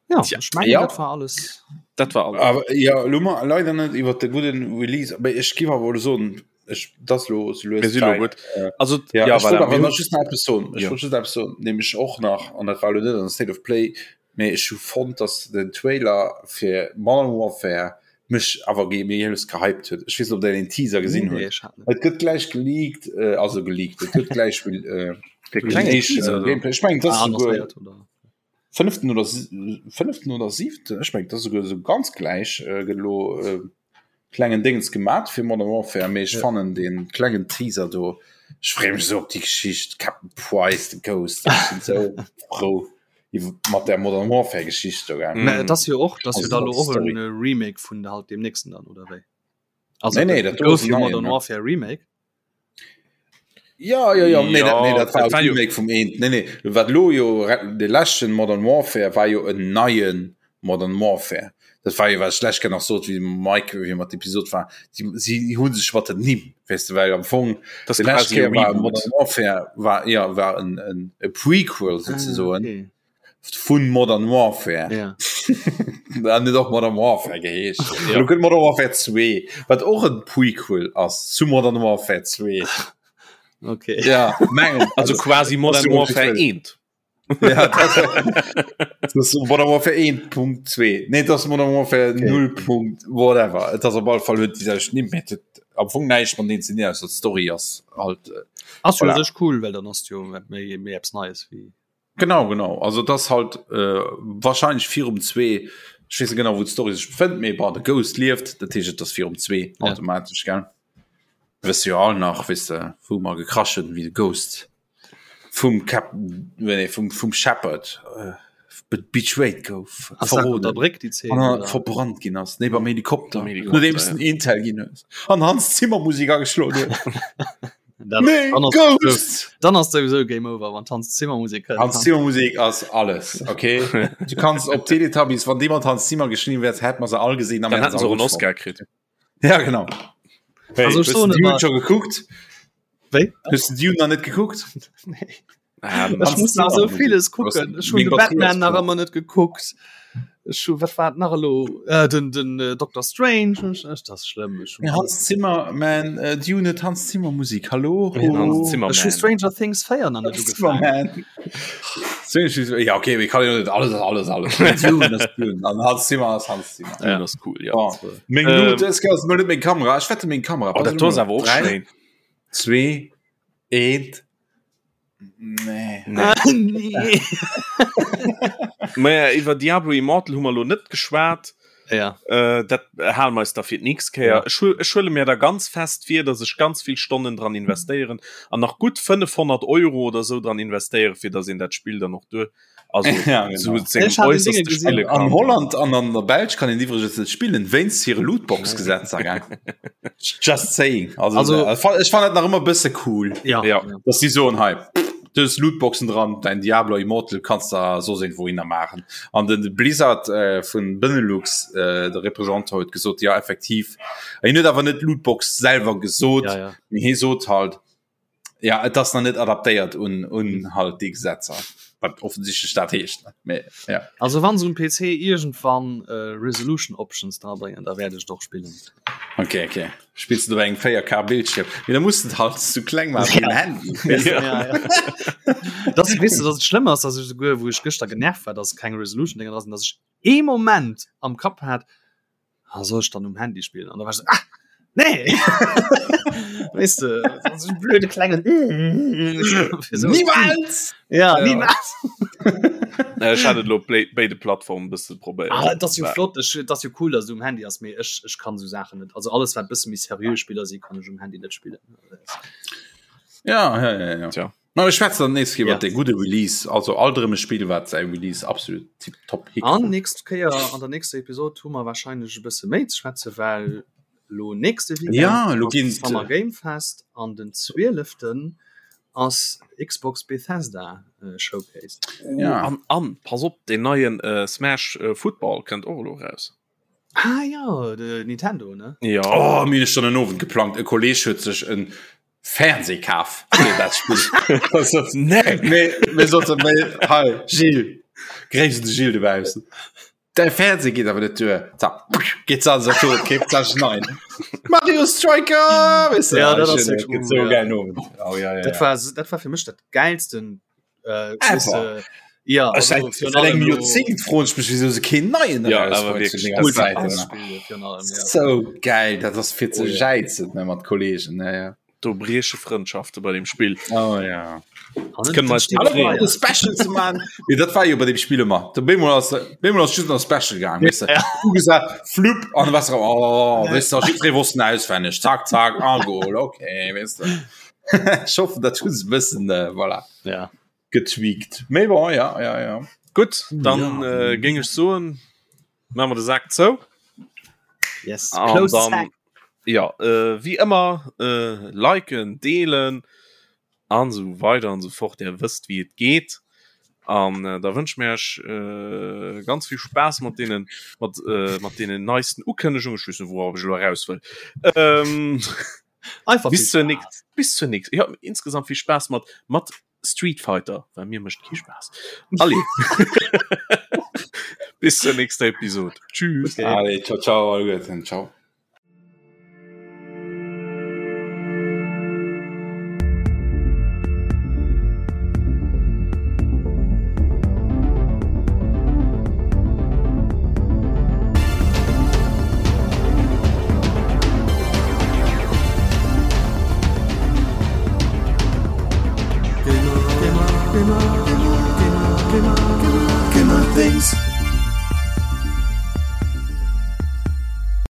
Ja, Tja. ech mengen, Ja. dat war alles. Dat war alles. Awer ja, lo mar leider net iwwer de gudden Release, awer ech giff awer elo soen, ech dat ass lo sou lues Mir si lo Zäit. gutt. Äh, Also, ja, ja, ech wollt voilà, awer mir nach hunn just nach eppes soen. Ech Ja. wollt just eppes soen, nämlech och nach, an dat war elo net an der State of Play, mee ech hu fonnt, dass den Trailer fir Modern Warfare mech awer ge méi lues gehypt huet. Ech weess net, ob der den Teaser gesinn Nee, hutt. ech hat net. Et gëtt gläich geleakt, äh, also geleakt, et gëtt gläich äh, Der den klenge éischten Teaser do. Gameplay. Ech mengen, dat Ah, ass souguer annoncéiert, oder? fënneften oder fënneften oder siwten, ech mengen, dat ass souguer esou ganz gläich äh, gëtt elo äh, klengen Dingens gemat fir Modern Warfare, mee ech Ja. fannen den klengen Teaser do, ech freeë mech esou op déi Geschicht, Captain Price, the Ghost, ech sinn esou frou iwwer mat der Modern Warfare Geschicht do, gell. Mä et ass jo och, dass jo Also da lo dat och Story. en Remake vun halt deem nächsten dann, oder wéi? Also Nee, nee, et dat do gouf ass en jo neien, Modern ne? Warfare Remake. Ja, ja, ja, nee, dat, nee, dat war dat war jo- Remake vum eent. Nee, nee, wat lo jo de leschten Modern Warfare war jo en neien Modern Warfare. Dat war jo wat ech lech nach sot wéi Mike wéi mat Episode war. Si, si hunn sech mat den Nimm, weess de, well am Fong Das de lescht quasi e Kéier war Reboot. Modern Warfare war ja war en, en, e Prequel sozusagen. Ah, okay. vun Modern Warfare ja. An net och Modern Warfare geheescht. Ja. Lo gëtt Modern Warfare 2, wat och en Prequel ass zu Modern Warfare 2. Okay. Ja, mengen. Also quasi Modern ass jo Warfare offiziell. 1. Ja, dat, dat ass Modern Warfare 1.2. Nee, dat ass Modern Warfare Okay. 0. Punkt whatever. Et ass op alle Fall huet déi selwecht Nimm, mee et huet am Fong näischt mat deen ze dinn, ausser d'Story ass halt. äh, Ass jo Voilà. sech cool, well dann ass jo méi méi eppes Neies wéi. Genau, genau. Also et ass halt äh, wahrscheinlech virum zwee, ech weess net genau wou d'Story sech befënnt, mee bon, de Ghost lieft, dat heescht et ass virum zwee Ja. automatesch, gell? Wësse jo all nach, weess de, wou mer gekrasch hunn, wéi de Ghost vum Captain, nee, vum, vum Shepard äh, be betrayed gouf, Ass dat op der verroden Bréck déi Zeen? an oder? verbrannt ginn ass, nee, beim Helikopter, Beim Helikopter, nodeems ja. den Intel ginn hues an Hans Zimmer Musik ageschloen huet. Dann, Nee, dann ass Ghost! dann ass sowieso Game over, wann Hans Zimmer Musik kënnt. Hans Zimmer Musik ass alles, okay? Du kannst op Teletubbies, wann jemand Hans Zimmer geschrieben wärt, hätt man se all gesehen. Dann hätten se och en Oscar kritt. Ja, genau. Hey, Also, also, ech soen du Dune ëmmer- schon geguckt? Wéi? Hues du Dune nach net gekuckt? Nee. Ähm, Ech Hans muss nach Zimmer so vieles Musik. kucken. Ech hun Meng de Batterie Batman ass nach voll. ëmmer net gekuckt. Ech hu wat war et nach elo? Äh, den den äh, Dr. Strange ech, ech, das ist schlimm. Ech hun Ja, Hans Zimmer, man, äh, Dune huet Hans Zimmer Musik. Hallo? Ja, Hans Zimmer. Ech hu Man. Stranger Things 4 nach net Hans Zimmer, ugefaangen. man. Strange- Ja, okay, wir kann ja net alles, alles, alles. Dune ass Dune. An Hans Zimmer ass Hans Zimmer. Dune ass cool, ja. Oh. Meng Ähm. ähm, das ass net meng Kamera. Ech wette meng Kamera. Oh, dat do ass awer och Drei, schéin. Zwee, eent. Nee. Nee. Nee. Maja, iwwer Diablo Immortal hu mer lo net geschwat. Ja. Äh, dat hale mer eis da fir d'nächst Kéier. Ja. Ech hu, ech huele mir da ganz fest vir, dass ech ganz vill Stonnen dran investéieren an nach gutt 500 Euro oder sou dran investéieren, fir dass een dat Spill dann och duer, also Ja, genau. zu sengem Ech hat den Dinge äusserste gesinn. spille An kann. Holland an an der Belsch kann een iwwregens net spillen wéinst hire Lootbox-Gesetzer, gell? Just saying. Also, Also- also ech fannen dat nach ëmmer e bësse cool, Ja. Ja. dass déi soen, hei, du hues Lootboxen dran, däin Diablo Immortal kanns der soss iergendwouhinner maachen. An den Blizzard äh, vun Benelux, äh, de Représentant huet gesot, ja effektiv. Hien huet awer net Lootbox selwer gesot, Ja, ja. mee hie sot halt, Ja, et ass nach net adaptéiert un, un halt déi Gesetzer, wat offensichtlech dat heescht. Mee, ja. Also wann se um PC iergendwann äh, Resolution Options dra bréngen, da wäert ech et och spillen. Okay, okay. Spills du op engem 4K Bildschirm? Mee da muss du et halt zu kleng maachen fir den Handy. Weess du? Ja, ja. Das, weess du, dass et schlëmm ass, dass ech souguer, wou ech gëschter genervt war, dass keng Resolution Dinger dra sinn, dass ech ee Moment am Kapp hat, ah, soll ich dann um Handy spielen? Und da war ich so, ah, nee! weißt du, so ein blöde kleinen. so. Niemals! Ja, Ja. niemals! Ech hat et lo béide Plattformen bësse probéiert. Ah, das ist jo flott, ich, das ist jo cool, dass du um Handy hast, mee ech, ech kann so Sachen net. Also alles, wat bësse méi seriö Spiller si, kann ech um Handy net spillen. Ja, ja, ja, ja. Tja. Ma mir schwätzen dann nächst Kéier Ja. iwwer de gudde Release, also alt erëm e Spill, wat säi Release absolut tiptop An hikrut. nächst Kéier an der nächster Episode hu mer wahrscheinlech e bësse méi ze schwätzen, well lo nächste Weekend Ja, lo ass ginn Summer Game Fest an den 12. ass Xbox Bethesda äh, Showcase. Oh, Ja. an, an, pass op, den neien äh, Smash äh, Football kënnt och elo raus. Ah ja, de Nintendo ne? Ja. Oh, mir hunn schon en Owend geplangt. E Kolleg huet sech en Fernseh kaf fir dat Spill. Also, Nee. nee, mir sollten, nee, hei, Gilles, gréiss de Gilles dobaussen. Däi Fernseh geet awer net duer. Zack, geet se an Saturn, keeft sech nein. Mario Striker! Weißt du, Ja, dat ah, ass schön, wirklich gëtt cool, so ja. geil Owend. Oh, ja, ja, Dat ja. war dat war fir mech dat geilsten äh, Ever. weißt du, ja, Ech also seit, virun seit engem allem lo- Joerzéngt froen ech mech, wieso se keen neien Ja, erausbréngt awer zu wierklech. denger Das Zäit. Multipass-Spiel virun allem, ja. So geil, dat ass fir ze Oh, ja. jäizen ne, mat Kollegen. Ja, ja. Do brieche Frëndschafte bei dem Spill. Oh, ja. Kënne mer eis steet drop fräi. freeën. De Special ze man. Nee, dat war jo bei dem Spiel ëmmer. De Bemol ass Bemol ass just nach Special gaang weißt du. Ja. Du gesagt flup an was oh, weißt du, jiddweree wosst en auswenneg. Zack zack a Goal okay weißt du. Ech hoffen dat hu se bëssen äh, voilà Ja. getweakt. Mee bon ja ja ja. Gutt, dann Ja. äh, géing ech soen, maache mer de Sak zou. Yes. An Close dann, sack. ja, äh, wéi ëmmer, äh, liken, deelen an esou weider an esou fort. Där wësst, wéi et geet. An äh, da wënsche mir iech äh, ganz vill Spaass mat deenen, mat, äh, mat deenen neisten Ukënnegungen. Ech weess net, wourop ech elo eraus wëll. Ähm, Einfach bis viel zur Spaß. nächst, bis zur nächst, ja, insgesamt vill Spaass mat, mat Street Fighter, well mir mécht kee Spaass. Allez. Bis zur nächster Episode. Tschüss. Okay. Allez, ciao ciao, alleguerten, ciao. Gamer, Gamer, Gamer, Gamer, Gamer, Gamer, Gamer Things.